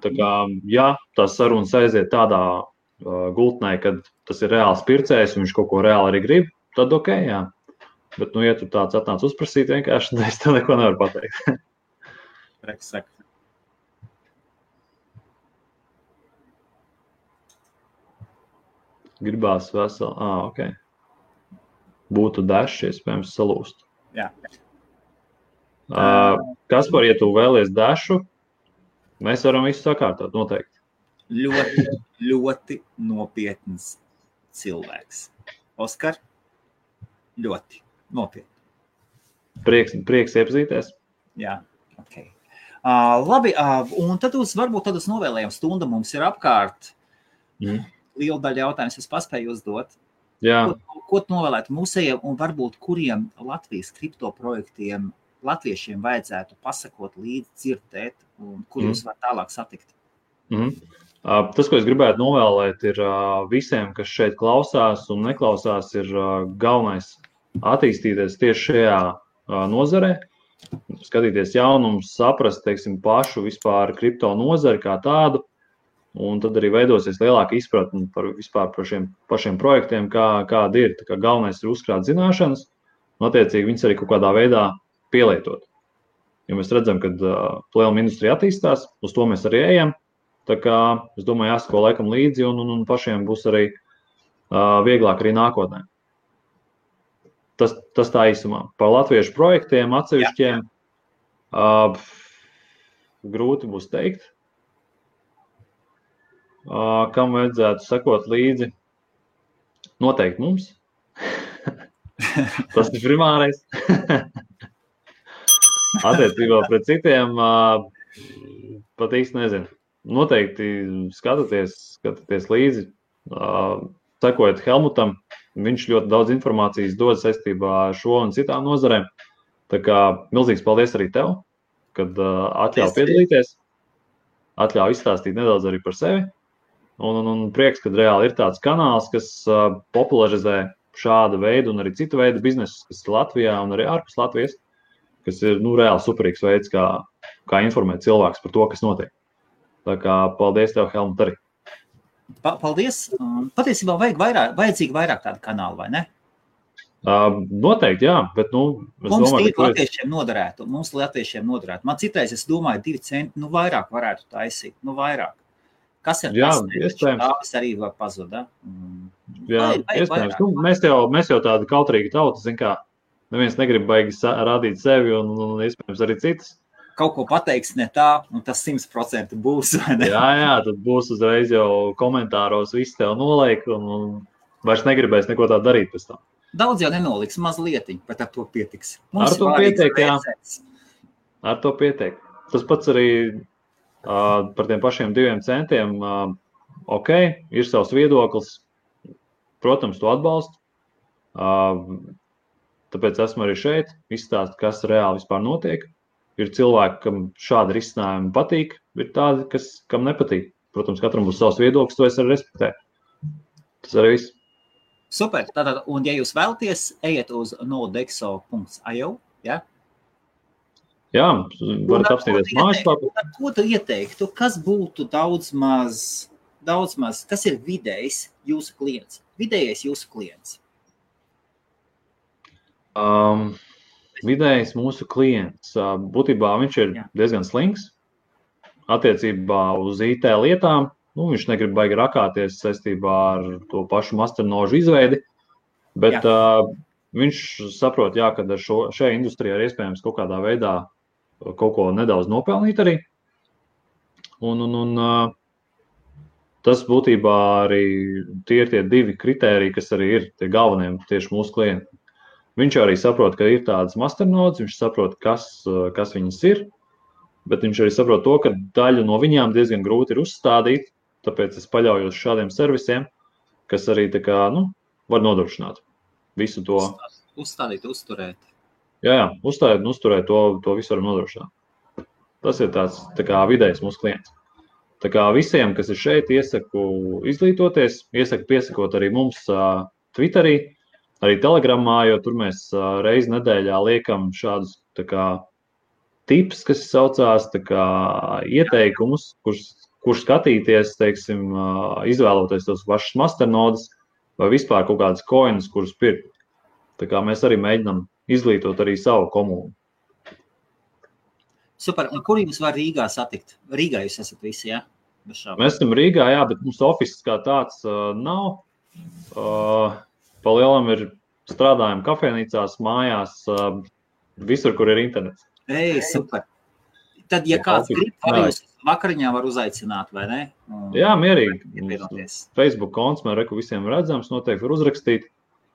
Tā kā, ja tās sarunas aiziet tādā gultnē, kad tas ir reāls pircējs un viņš kaut ko reāli arī grib, tad ok, jā. Bet, ja tu tāds atnāc uzprasīt vienkārši, tad es tev neko nevaru pateikt. Gribās veseli. Ok. Būtu dažs, iespējams, salūst. Jā. Kaspar, ja tu vēlies dašu, mēs varam visu sakārtot, noteikti. Ļoti, ļoti nopietns cilvēks. Oskar, ļoti nopietni. Prieks iepazīties. Jā, ok. Labi, un tad varbūt uz novēlējumu stundu mums ir apkārt. Liela daļa jautājums es paspēju uzdot. Jā. Ko tu novēlētu mūsējiem un varbūt kuriem Latvijas kriptoprojektiem latviešiem vajadzētu pasakot līdzi, dzirdēt un kur jūs var tālāk satikt? Tas, ko es gribētu novēlēt, ir visiem, kas šeit klausās un neklausās, ir galvenais attīstīties tieši šajā nozarē, skatīties jaunumus, saprast, teiksim, pašu vispār kripto nozari kā tādu, un tad arī veidosies lielāka izpratne par šiem pašiem projektiem, kādi ir. Tā kā galvenais ir uzkrāt zināšanas, un attiecīgi viņas arī kaut kādā veidā pielietot. Jo mēs redzam, ka plēluma industrija attīstās, uz to mēs arī ejam. Tā kā, es domāju, jāsako laikam līdzi, un pašiem būs arī vieglāk arī nākotnē. Tas tā īsumā. Par latviešu projektiem atsevišķiem grūti būs teikt. Kam vajadzētu sekot līdzi? Noteikti mums. Tas ir primārais. Attiecībā pret citiem pat īsti nezinu. Noteikti skatieties līdzi, sekojot Helmutam. Viņš ļoti daudz informācijas dod saistībā ar šo un citām nozarēm. Tā kā milzīgs paldies arī tev, kad atļauj piedalīties, atļauj izstāstīt nedaudz arī par sevi. Un prieks, ka reāli ir tāds kanāls, kas popularizē šāda veida un arī citu veidu biznesus, kas ir Latvijā un arī ārpus Latvijas, kas ir reāli superīgs veids, kā informēt cilvēks par to, kas notiek. Tā kā paldies tev, Helmut, arī. Paldies. Patiesībā vajadzīgi vairāk tādu kanālu, vai ne? Noteikti, jā, bet, es mums domāju, ka mums latviešiem noderētu. Man citreiz, es domāju, 2 centi, vairāk varētu taisīt, vairāk. Kas ir jā, tas? Iespējams. Tāpēc arī var pazuda. Jā, iespējams. Mēs jau tādi kautrīgi tauti, zin kā, neviens negrib baigi rādīt sevi un iespējams arī citas. Kaut ko pateiks ne tā, un tas 100% būs, vai ne? Jā, tad būs uzreiz jau komentāros viss tev nolaik un vairs negribēs neko tā darīt pēc tam. Daudz jau nenoliks, mazlietiņ, bet ar to pietiks. Ar to pietiek, jā. Ar to pietiek. Tas pats arī par tiem pašiem 2 centiem. Ok, ir savs viedoklis. Protams, to atbalstu. Tāpēc esmu arī šeit, izstāst, kas reāli vispār notiek. Ir cilvēki, kam šādi risinājumi patīk, ir tādi, kam nepatīk. Protams, katram būs savs viedoklis, to es arī respektēju. Tas arī viss. Super. Tātad, un ja jūs vēlaties, ejiet uz nodexo.io, ja? Jā, varat apstīties mājaslapu. Ko tu ieteiktu? Kas būtu daudz maz, kas ir vidējs jūsu klients? Vidējais jūsu klients? Vidējais mūsu klients. Būtībā viņš ir diezgan slings attiecībā uz IT lietām. Viņš negrib baigi rakāties saistībā ar to pašu masternožu izveidi, bet viņš saprot, ka ar šajā industrijā ir iespējams kaut kādā veidā kaut ko nedaudz nopelnīt arī. Un tas būtībā arī tie ir tie 2 kritēriji, kas arī ir tie galvenie tieši mūsu klienti. Viņš arī saprot, ka ir tādas masternodes, viņš saprot, kas viņas ir, bet viņš arī saprot to, ka daļu no viņām diezgan grūti ir uzstādīt. Tāpēc es paļaujos šādiem servisiem, kas arī var nodrošināt visu to. Uzstādīt, uzturēt. Jā, uzstādīt un uzturēt, to visu varam nodrošināt. Tas ir tāds vidējs mūsu klients. Tā kā visiem, kas ir šeit, iesaku izglītoties, iesaku piesakot arī mums Twitterī, arī Telegramā, jo tur mēs reizi nedēļā liekam šādus tips, kas saucās ieteikumus, kurš skatīties, teiksim, izvēloties tos pašus masternodes vai vispār kaut kādas coinus, kurus pirkt. Tā kā mēs arī mēģinām izglītot arī savu komunu. Super. Un kur jums var Rīgā satikt? Rīgā jūs esat visi, jā? Mēs esam Rīgā, jā, bet mums office kā tāds nav. Pa lielam ir strādājam kafejnīcās, mājās, visur, kur ir internets. Super. Tad, ja kāds grib, arī jūs vakariņā var uzaicināt, vai ne? Jā, mierīgi. Facebook konts, man reku visiem redzams, noteikti var uzrakstīt.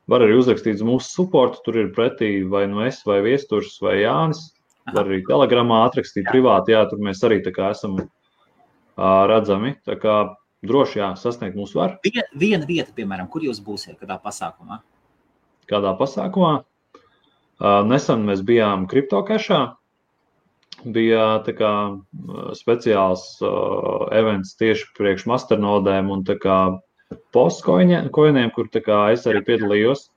Var arī uzrakstīt uz mūsu supportu, tur ir pretī vai es, vai Viesturs, vai Jānis. Var arī Telegramā atrakstīt privāti, tur mēs arī esam redzami. Tā kā droši, sasniegt mūs var. Viena vieta, piemēram, kur jūs būsiet, kādā pasākumā? Kādā pasākumā? Nesen mēs bijām CryptoCashā. Bija speciāls events tieši priekš masternodēm un postkoiniem, kur es arī piedalījos.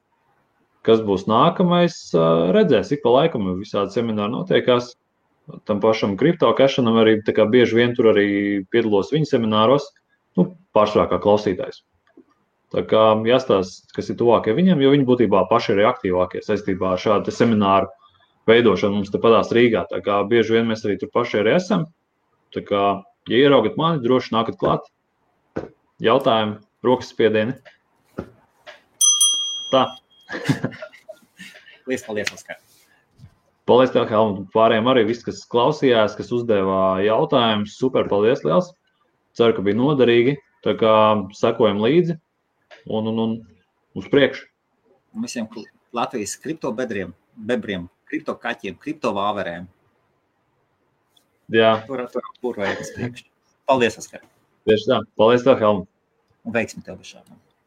Kas būs nākamais, redzēs, ik pa laikam visādi semināri notiekās. Tam pašam CryptoCashanam arī bieži vien tur arī piedalos viņa semināros, pārsvarā kā klausītājs. Tā kā jāstāsta, kas ir tuvākie viņam, jo viņi būtībā paši ir aktīvākie saistībā ar šādu semināru veidošanu mums te padās Rīgā. Tā kā bieži vien mēs arī tur paši arī esam. Tā kā, ja ieraugat mani, droši nākat klāt. Jautājumi, rokas spiedieni. Tā. Paldies, Oskar. Paldies tev, Helmut. Pārējiem arī viss, kas klausījās, kas uzdevā jautājumus. Super, paldies liels. Ceru, ka bija noderīgi. Tā kā sekojam līdzi un uz priekšu. Un visiem Latvijas kriptobebriem, kriptokaķiem, kriptovāverēm. Jā. Tur vajag uz priekšu. Paldies, Oskar. Tieši tā. Paldies tev, Helmut. Un veiksmi tev bez šādām.